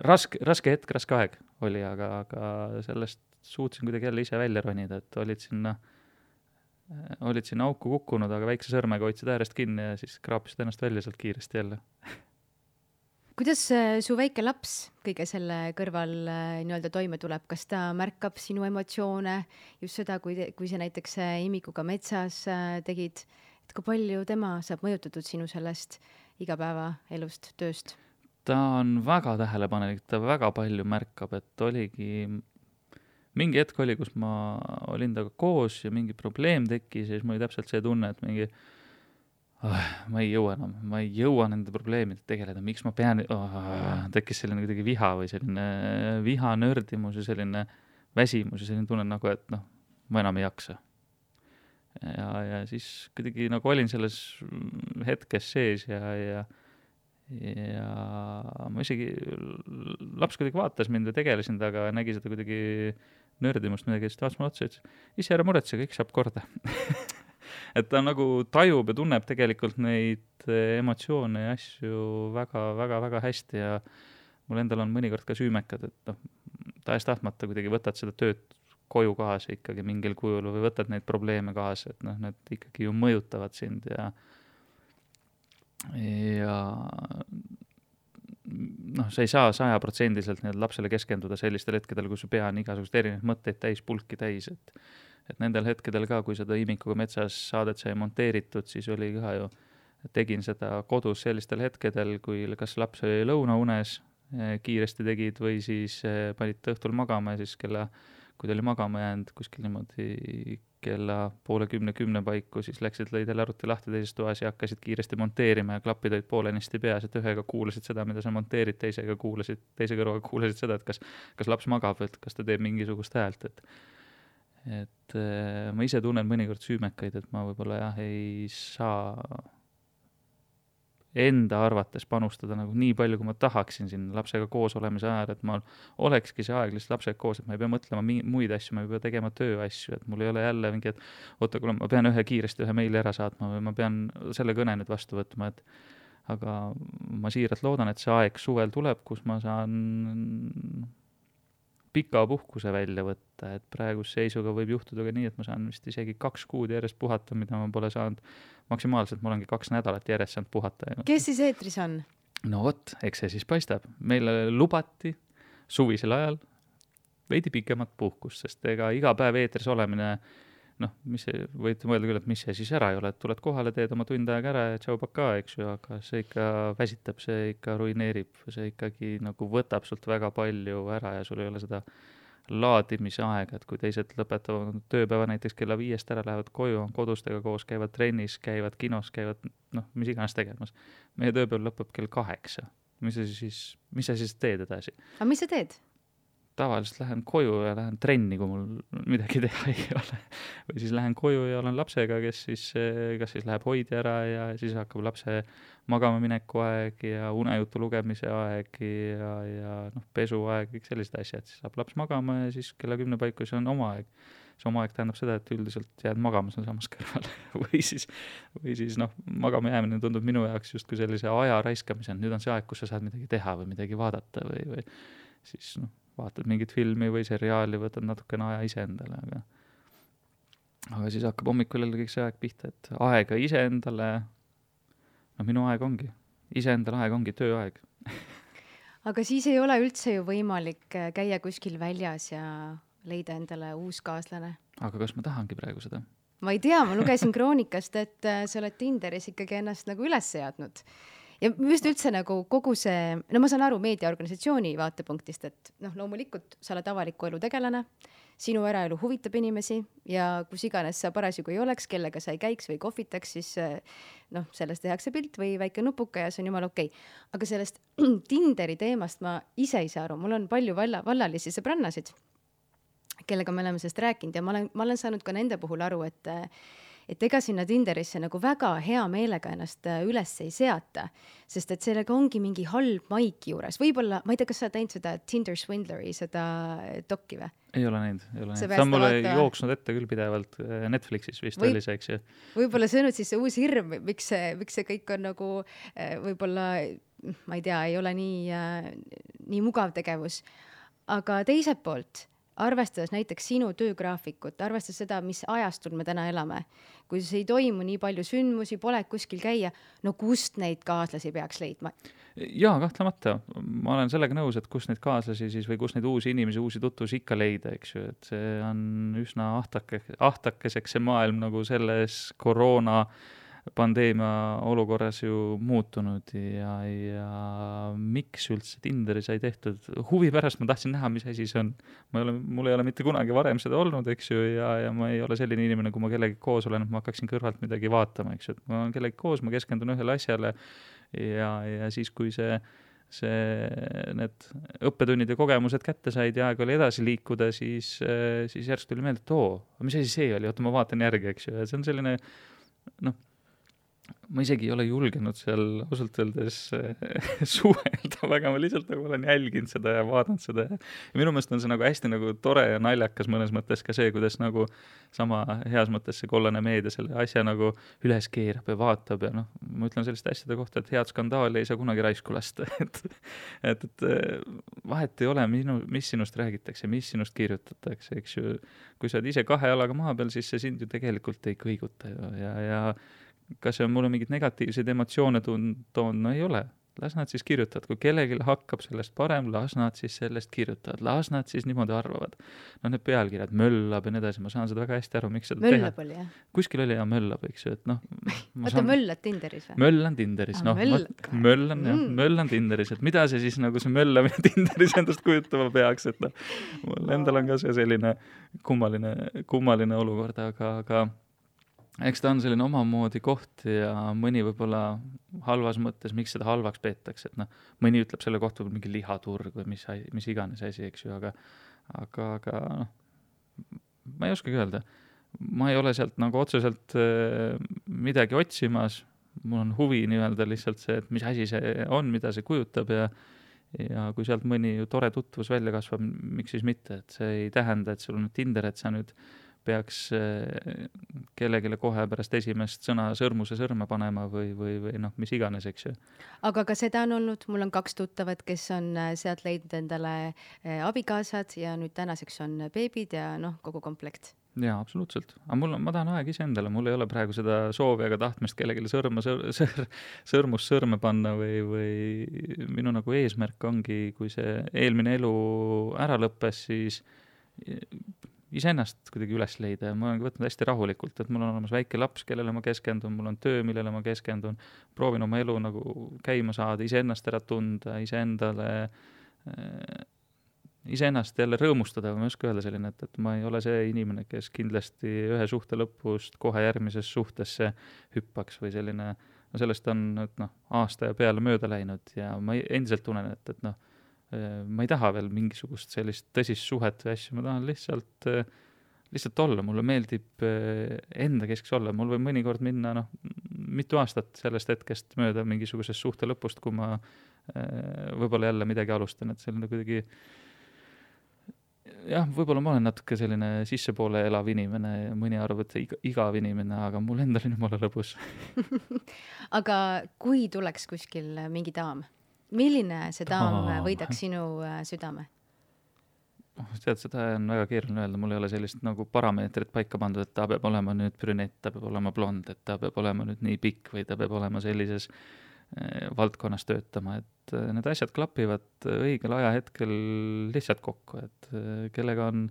raske hetk, raske aeg oli, aga sellest suutsin kuidagi jälle ise välja ronida, et olid sinna auku kukkunud, aga väikse sõrmega hoidsid äärest kinni ja siis kraapisid ennast välja sealt kiiresti jälle. Kuidas su väike laps kõige selle kõrval nii-öelda toime tuleb? Kas ta märkab sinu emotsioone, just seda, kui sa näiteks imikuga metsas tegid, et kui palju tema saab mõjutatud sinu sellest igapäevaelust, tööst? Ta on väga tähelepanelik, ta väga palju märkab, et oligi mingi hetk oli, kus ma olin taga koos ja mingi probleem tekkis ja siis mul oli täpselt see tunne, et mingi ma ei jõua nende probleemidega tegeleda, miks ma pean, tekkis selline kuidagi viha või selline viha, nördimus ja selline väsimus ja selline tunne nagu, et noh, ma enam ei jaksa. Ja siis kuidagi nagu olin selles hetkes sees ja ma isegi, laps kuidagi vaatas mind ja tegelesin taga ja nägi seda kuidagi nördimust midagi, siis ta vaatas mulle otsa ja ütles, ise ära muretse, kõik saab korda. Et ta nagu tajub ja tunneb tegelikult neid emotsioone ja asju väga hästi ja mul endal on mõnikord ka süümekad, et noh, tahes-tahtmata kuidagi võtad seda tööd koju kaasa ikkagi mingil kujul või võtad neid probleeme kaasa, et noh, need ikkagi ju mõjutavad sind ja noh, sa ei saa 100% nii lapsele keskenduda sellistel hetkedel, kui su pea on igasugust erinevaid mõtteid täis, pulki täis, et nendel hetkedel ka, kui seda imikuga metsas saadet sai monteeritud, siis oli ka ju, tegin seda kodus sellistel hetkedel, kui kas laps oli lõunaunes, kiiresti tegid või siis panid õhtul magama ja siis kui ta oli magama jäänud kuskil niimoodi kella 9:30 paiku, siis läksid, lõid jälle arvuti lahti teises toas ja hakkasid kiiresti monteerima ja klapid olid poolenisti peas, et ühega kuulasid seda, mida sa monteerid, teise kõrvaga kuulasid seda, et kas laps magab, et kas ta teeb mingisugust häält, et ma ise tunnen mõnikord süümekaid, et ma võib-olla jah, ei saa enda arvates panustada nagu nii palju, kui ma tahaksin siin lapsega koos olemise ajal, et ma olekski see aeg lihtsalt lapsega koos, et ma ei pea mõtlema muid asju, ma ei pea tegema tööasju, et mul ei ole jälle mingi, et oota, kuule, ma pean kiiresti ühe meili ära saatma või ma pean selle kõne nüüd vastu võtma, et aga ma siiralt loodan, et see aeg suvel tuleb, kus ma saan pika puhkuse välja võtta, et praeguse seisuga võib juhtuda ka nii, et ma saan vist isegi 2 kuud järjest puhata, mida ma pole saanud maksimaalselt, ma olengi 2 nädalat järjest saanud puhata. Kes siis eetris on? No vot, eks see siis paistab. Meile lubati suvisel ajal veidi pikemat puhkust, sest ega iga päev eetris olemine, noh, võite mõelda küll, et mis see siis ära ei ole, et tuled kohale, teed oma tund aega ära ja tšau paka, eks ju, aga see ikka väsitab, see ikka ruineerib, see ikkagi nagu võtab sult väga palju ära ja sul ei ole seda laadimise aega, et kui teised lõpetavad tööpäeva näiteks kella 5 ära, lähevad koju, on kodustega koos, käivad trennis, käivad kinos, käivad, noh, mis iganes tegemas. Meie tööpäev lõpeb kell 8. Mis sa siis teed edasi? Aga mis sa teed? Tavaliselt lähen koju ja lähen trenni, kui mul midagi teha ei ole. Või siis lähen koju ja olen lapsega, kes siis, kas siis läheb hoidi ära ja siis hakkab lapse magama mineku aeg ja unejutu lugemise aeg ja noh, pesu aeg, kõik sellised asjad. Siis saab laps magama ja siis kella 10 paiku see on oma aeg. See oma aeg tähendab seda, et üldiselt jääd magama seal samas kõrval. või siis noh, magama jäämine tundub minu jaoks justkui sellise aja raiskamise. Nüüd on see aeg, kus sa saad midagi teha või midagi vaadata või siis noh, vaatad mingit filmi või seriaali, võtad natukene aja iseendale, aga siis hakkab hommikul jälle kõik see aeg pihta, et aega iseendale, no minu aeg ongi, iseendale aeg ongi tööaeg. Aga siis ei ole üldse ju võimalik käia kuskil väljas ja leida endale uus kaaslane. Aga kas ma tahangi praegu seda? Ma ei tea, ma lugesin kroonikast, et sa oled Tinderis ikkagi ennast nagu üles seadnud. Ja just üldse nagu kogu see, no ma saan aru meediaorganisatsiooni vaatepunktist, et noh, loomulikult sa oled avaliku elu tegelane, sinu eraelu huvitab inimesi ja kus iganes sa parasjagu ei oleks, kellega sa ei käiks või kohvitaks, siis noh, sellest tehakse pilt või väike nupuka ja see on jumal okei. Aga sellest Tinderi teemast ma ise ei saa aru, mul on palju vallalisi sõbrannasid, kellega me oleme sellest rääkinud ja ma olen saanud ka nende puhul aru, et ega sinna Tinderisse nagu väga hea meelega ennast üles ei seata, sest et sellega ongi mingi halb maik juures. Võib-olla, ma ei tea, kas sa teinud seda Tinder Swindleri, seda dokki või? Ei ole näinud. Ta on mulle jooksnud ette küll pidevalt Netflixis vist oli see, eks ju. Võib-olla see on nüüd siis see uus hirm, miks see kõik on nagu võib-olla, ma ei tea, ei ole nii mugav tegevus. Aga teiselt poolt, arvestades näiteks sinu töögraafikut, arvestades seda, mis ajastul me täna elame, kui see ei toimu nii palju sündmusi, pole kuskil käia, no kust neid kaaslasi peaks leidma? Jaa, kahtlemata. Ma olen sellega nõus, et kus neid kaaslasi siis või kus neid uusi inimesi, uusi tutvusi ikka leida, eks ju, et see on üsna ahtakeseks see maailm nagu selles koroona pandeemia olukorras ju muutunud ja miks üldse Tinderi sai tehtud? Huvi pärast ma tahtsin näha, mis asi see on. Mul ei ole mitte kunagi varem seda olnud, eks ju, ja ma ei ole selline inimene, kui ma kellegi koos olen, et ma hakkaksin kõrvalt midagi vaatama, eks ju. Ma olen kellegi koos, ma keskendun ühele asjale ja siis, kui need õppetunnid ja kogemused kätte said ja aeg oli edasi liikuda, siis järsku tuli meelde, et mis asi see oli? Oota, ma vaatan järgi, eks ju. Ja see on selline, ma isegi ei ole julgenud seal ausalt öeldes suhelda väga, ma lihtsalt nagu olen jälginud seda ja vaadanud seda ja minu meelest on see nagu hästi nagu tore ja naljakas mõnes mõttes ka see, kuidas nagu sama heas mõttes see kollane meedia selle asja nagu üles keerab ja vaatab ja ma ütlen selliste asjade kohta, et head skandaali ei saa kunagi raisku lasta, et vahet ei ole, mis sinust räägitakse, mis sinust kirjutatakse, eks ju, kui sa oled ise kahe jalaga maa peal, siis see sind ju tegelikult ei kõiguta ja kas see on mulle mingid negatiivseid emotsioone toon? No ei ole. Las nad siis kirjutavad. Kui kellelgi hakkab sellest parem, las nad siis sellest kirjutavad. Las nad siis niimoodi arvavad. Need pealkirjad, möllab ja nii edasi. Ma saan seda väga hästi aru, miks seda möllab oli, jah? Kuskil oli ja möllab, eks ju. Oota, möllad Tinderis või? Möllan Tinderis. Möllan Tinderis. Et mida see siis nagu see möllamine Tinderis endast kujutama peaks? Et mul endal on ka see selline kummaline olukord, aga eks ta on selline omamoodi koht ja mõni võib-olla halvas mõttes, miks seda halvaks peetakse, et mõni ütleb selle kohta mingi lihaturg või mis iganes asi, eks ju, aga ma ei oskagi öelda. Ma ei ole sealt nagu otseselt midagi otsimas, mul on huvi nii-öelda lihtsalt see, et mis asi see on, mida see kujutab ja kui sealt mõni tore tutvus välja kasvab, miks siis mitte, et see ei tähenda, et sul on Tinder, et sa nüüd peaks kellegile kohe pärast esimest sõna sõrmuse sõrme panema või mis iganes, eks ju. Aga ka seda on olnud, mul on 2 tuttavat, kes on sealt leidnud endale abikaasad ja nüüd tänaseks on beebid ja kogu komplekt. Jaa, absoluutselt. Aga ma tahan aeg ise endale, mul ei ole praegu seda soovi ega tahtmist kellegile sõrmust sõrme panna või minu nagu eesmärk ongi, kui see eelmine elu ära lõppes, siis iseennast kuidagi üles leida ja ma olen võtnud hästi rahulikult, et mul on olemas väike laps, kellele ma keskendun, mul on töö, millele ma keskendun, proovin oma elu nagu käima saada, iseennast ära tunda, iseennast jälle rõõmustada, ma ei oska öelda selline, et ma ei ole see inimene, kes kindlasti ühe suhte lõpust kohe järgmises suhtesse hüppaks või selline, sellest on aasta ja peale mööda läinud ja ma endiselt tunnen, et ma ei taha veel mingisugust sellist tõsist suhet või asju, ma tahan lihtsalt olla, mulle meeldib enda keskeks olla, mul võib mõnikord minna mitu aastat sellest hetkest mööda mingisugusest suhte lõpust, kui ma võib-olla jälle midagi alustan, et selline kuidagi jah, võib-olla ma olen natuke selline sissepoole elav inimene ja mõni arvab, et igav inimene, aga mul endal on jumala lõbus. Aga kui tuleks kuskil mingi daam? Milline see daam võidaks sinu südame? Tead, seda on väga keeruline öelda, mul ei ole sellist nagu parameetrit paika pandud, et ta peab olema nüüd brünett, ta peab olema blond, et ta peab olema nüüd nii pikk või ta peab olema sellises valdkonnas töötama, et need asjad klapivad õigel ajahetkel lihtsalt kokku, et kellega on,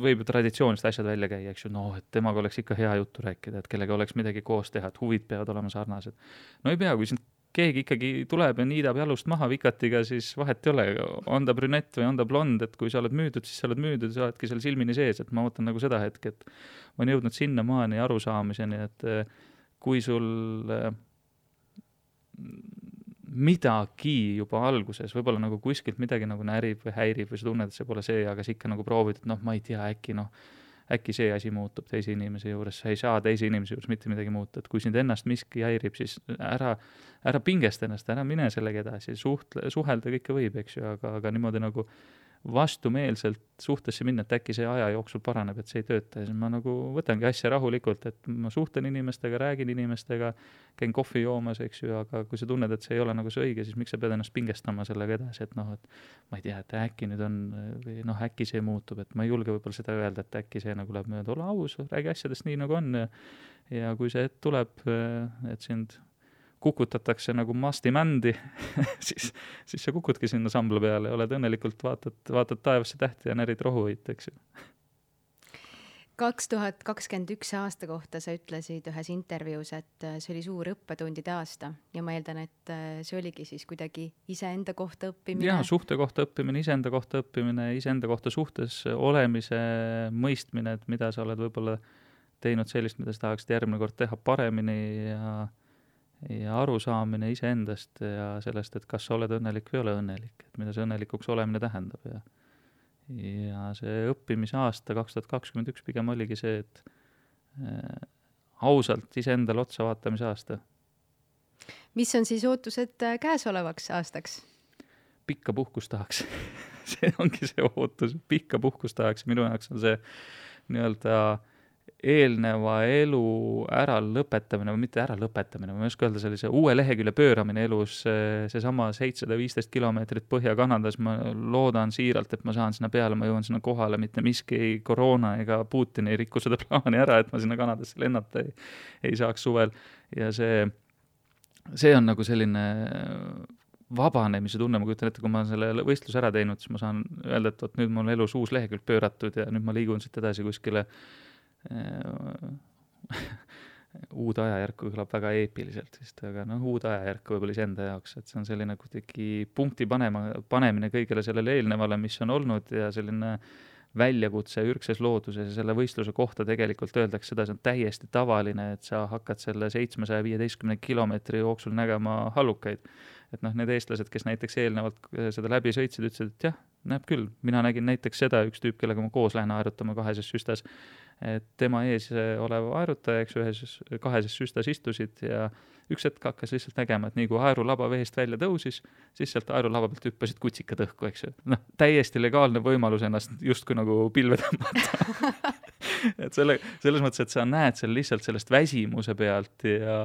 võib ju traditsioonist asjad välja käia, eks ju, et temaga oleks ikka hea juttu rääkida, et kellega oleks midagi koos teha, et huvid peavad olema sarnased. No ei pea, kui sind keegi ikkagi tuleb ja niidab jalust maha vikatiga, siis vahet ei ole, on ta brünett või on ta blond, et kui sa oled müüdud, siis sa oled müüdud, sa oledki seal silmini sees, et ma ootan nagu seda hetke, et ma olen jõudnud sinna maani arusaamiseni, et kui sul midagi juba alguses, võib-olla nagu kuskilt midagi nagu närib või häirib või sa tunned, et see pole see, aga sa ikka nagu proovid, et ma ei tea, äkki see asi muutub teise inimese juures, sa ei saa teise inimese juures mitte midagi muuta, et kui sind ennast miski häirib, siis ära pingesta ennast, ära mine sellega edasi, suhelda kõike võib, eks ju, aga niimoodi nagu vastumeelselt suhtesse minna, et äkki see aja jooksul paraneb, et see ei tööta ja siis ma nagu võtangi asja rahulikult, et ma suhtlen inimestega, räägin inimestega, käin kohvi joomas, eks ju, aga kui sa tunned, et see ei ole nagu see õige, siis miks sa pead ennast pingestama sellega edasi, et noh, et ma ei tea, et äkki nüüd on või noh, äkki see muutub, et ma ei julge võib-olla seda öelda, et äkki see nagu läheb mööda, ole aus, räägi asjadest nii nagu on ja kui see hetk tuleb, et sind kukutatakse nagu mastimändi siis sa kukudki sinna sambla peale ja oled õnnelikult, vaatad taevasse tähti ja närid rohuit, eks ju. 2021 aasta kohta sa ütlesid ühes intervjuus, et see oli suur õppetundide aasta ja ma eeldan, et see oligi siis kuidagi iseenda kohta õppimine. Jaa, suhte kohta õppimine, iseenda kohta suhtes olemise mõistmine, et mida sa oled võib-olla teinud sellist, mida sa tahaksid järgmine kord teha paremini ja arusaamine iseendast ja sellest, et kas sa oled õnnelik või ole õnnelik, et mida see õnnelikuks olemine tähendab ja see õppimisaasta 2021 pigem oligi see, et ausalt iseendale otsa vaatamise aasta. Mis on siis ootused käesolevaks aastaks? Pikka puhkust tahaks. See ongi see ootus, pikka puhkust tahaks. Minu jaoks on see nii-öelda eelneva elu ära lõpetamine või mitte ära lõpetamine, ma ei oska öelda, sellise uue lehekülje pööramine elus, seesama 715 kilomeetrit Põhja-Kanadas, ma loodan siiralt, et ma saan sinna peale, ma jõuan sinna kohale, mitte miski ei koroona ega Putin ei rikku seda plaani ära, et ma sinna Kanadasse lennata ei saaks suvel ja see on nagu selline vabanemise tunne, ma kujutan ette, kui ma selle võistluse ära teinud, siis ma saan öelda, et nüüd mul elus uus lehekülg pööratud ja nüüd ma liigun siit edasi kuskile uude ajajärku kõlab väga eepiliselt vist, aga uude ajajärku võib-olla iseenda jaoks, et see on selline kuidagi punkti panemine kõigele sellele eelnevale, mis on olnud ja selline väljakutse ürgses looduses ja selle võistluse kohta tegelikult öeldakse seda, see on täiesti tavaline, et sa hakkad selle 715 kilomeetri jooksul nägema hallukaid. Et need eestlased, kes näiteks eelnevalt seda läbi sõitsid, ütlesid, et jah, näeb küll. Mina nägin näiteks seda, üks tüüp, kellega ma koos lähen aerutama kaheses süstas, et tema ees olev aerutaja, eks kaheses süstas istusid ja üks hetk hakkas lihtsalt nägema, et nii kui aerulaba veest välja tõusis, siis sealt aerulaba pealt hüppasid kutsikad õhku, eks ju. Täiesti legaalne võimalus ennast justkui nagu pilve tõmmata. Et selles mõttes, et sa näed seal lihtsalt sellest väsimuse pealt ja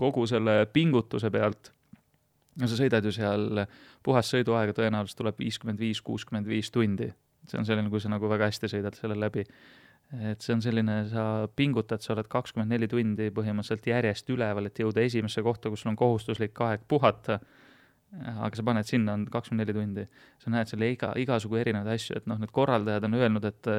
kogu selle pingutuse pealt. No sa sõidad ju seal, puhas sõiduaega tõenäoliselt tuleb 55-65 tundi. See on selline, kui sa nagu väga hästi sõidad selle läbi. Et see on selline, sa pingutad, sa oled 24 tundi põhimõtteliselt järjest üleval, et jõuda esimesse kohta, kus sul on kohustuslik aeg puhata. Aga sa paned sinna, on 24 tundi. Sa näed selle igasugu erinevaid asju, et need korraldajad on öelnud, et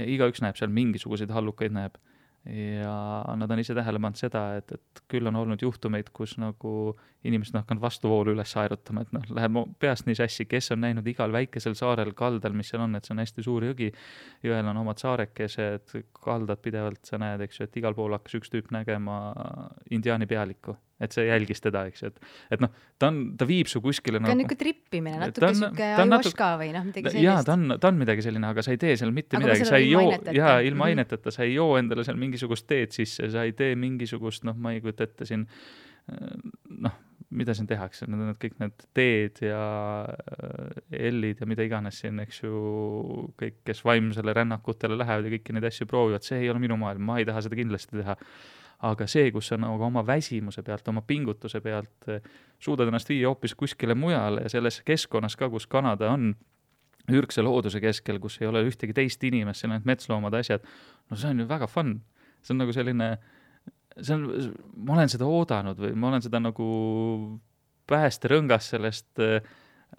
igaüks näeb seal mingisuguseid hallukaid näeb. Ja nad on ise tähele pannud seda, et küll on olnud juhtumeid, kus nagu inimesed on hakanud vastuvoolu üles aerutama, et läheb peast nii sassi, kes on näinud igal väikesel saarel kaldal, mis seal on, et see on hästi suur jõgi, jõel on omad saarekesed, kaldad pidevalt, sa näed, eks ju, et igal pool hakkas üks tüüp nägema indiaani pealikku, et see jälgis teda, eks ju, et ta viib su kuskile ta on nagu trippimine, natuke süke ajuaška või midagi sellist. Jaa, ta on midagi selline, aga sa ei tee seal mitte midagi, sa ei joo, ilma aineteta, sa ei joo endale seal mingisugust teed sisse, sa ei tee mingisugust, ma ei kujuta ette siin, mida siin tehakse, need kõik need teed ja ellid ja mida iganes siin, eks ju, kõik, kes vaimsele rännakutele lähevad ja kõiki neid asju proovivad, see ei ole minu maailm, ma ei taha seda kindlasti teha. Aga see, kus sa nagu oma väsimuse pealt, oma pingutuse pealt suudad ennast viia hoopis kuskile mujale ja selles keskkonnas ka, kus Kanada on ürgse looduse keskel, kus ei ole ühtegi teist inimest, seal on metsloomad asjad, see on ju väga fun. See on nagu selline, ma olen seda oodanud või ma olen seda nagu päästerõngas sellest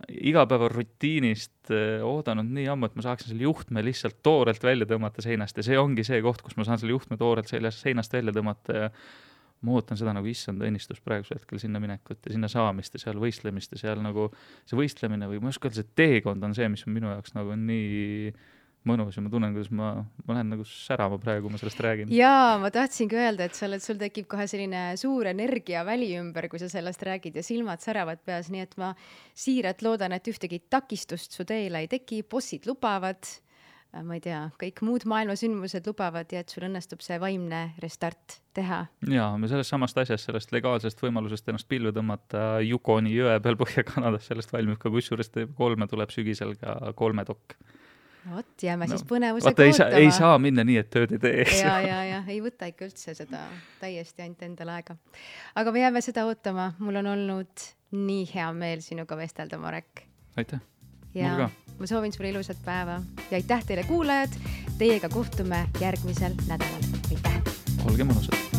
igapäeva rutiinist oodanud nii ammu, et ma saaksin selle juhtme lihtsalt toorelt välja tõmmata seinast ja see ongi see koht, kus ma saan selle juhtme toorelt seinast välja tõmmata ja ma ootan seda nagu issand õnnistus praegusel hetkel sinna minekut ja sinna saamist ja seal võistlemist ja seal nagu see võistlemine või ma ei oska öelda, see teekond on see, mis on minu jaoks nagu nii mõnus ja ma tunnen, kuidas ma lähen nagu särama praegu, kui ma sellest räägin. Jaa, ma tahtsingi öelda, et sul tekib kohe selline suur energia väli ümber, kui sa sellest räägid ja silmad säravad peas, nii et ma siiralt loodan, et ühtegi takistust su teele ei teki, bossid lubavad, ma ei tea, kõik muud maailmasündmused lubavad ja et sul õnnestub see vaimne restart teha. Jaa, me sellest samast asjast, sellest legaalsest võimalusest ennast pillu tõmmata Yukoni jõe peal Põhja-Kanadas, sellest valmib ka kusjuures kolme tuleb sügisel ka 3 dokk. Vot, jääme siis põnevusega ootama. Ei saa minna nii, et tööd ei tee. Ja, ei võta ikka üldse seda täiesti ainult endale aega. Aga me jääme seda ootama. Mul on olnud nii hea meel sinuga vestelda, Marek. Aitäh. Ja ma soovin sulle ilusat päeva ja aitäh teile kuulajad. Teiega kohtume järgmisel nädalal. Aitäh. Olge mõnusad.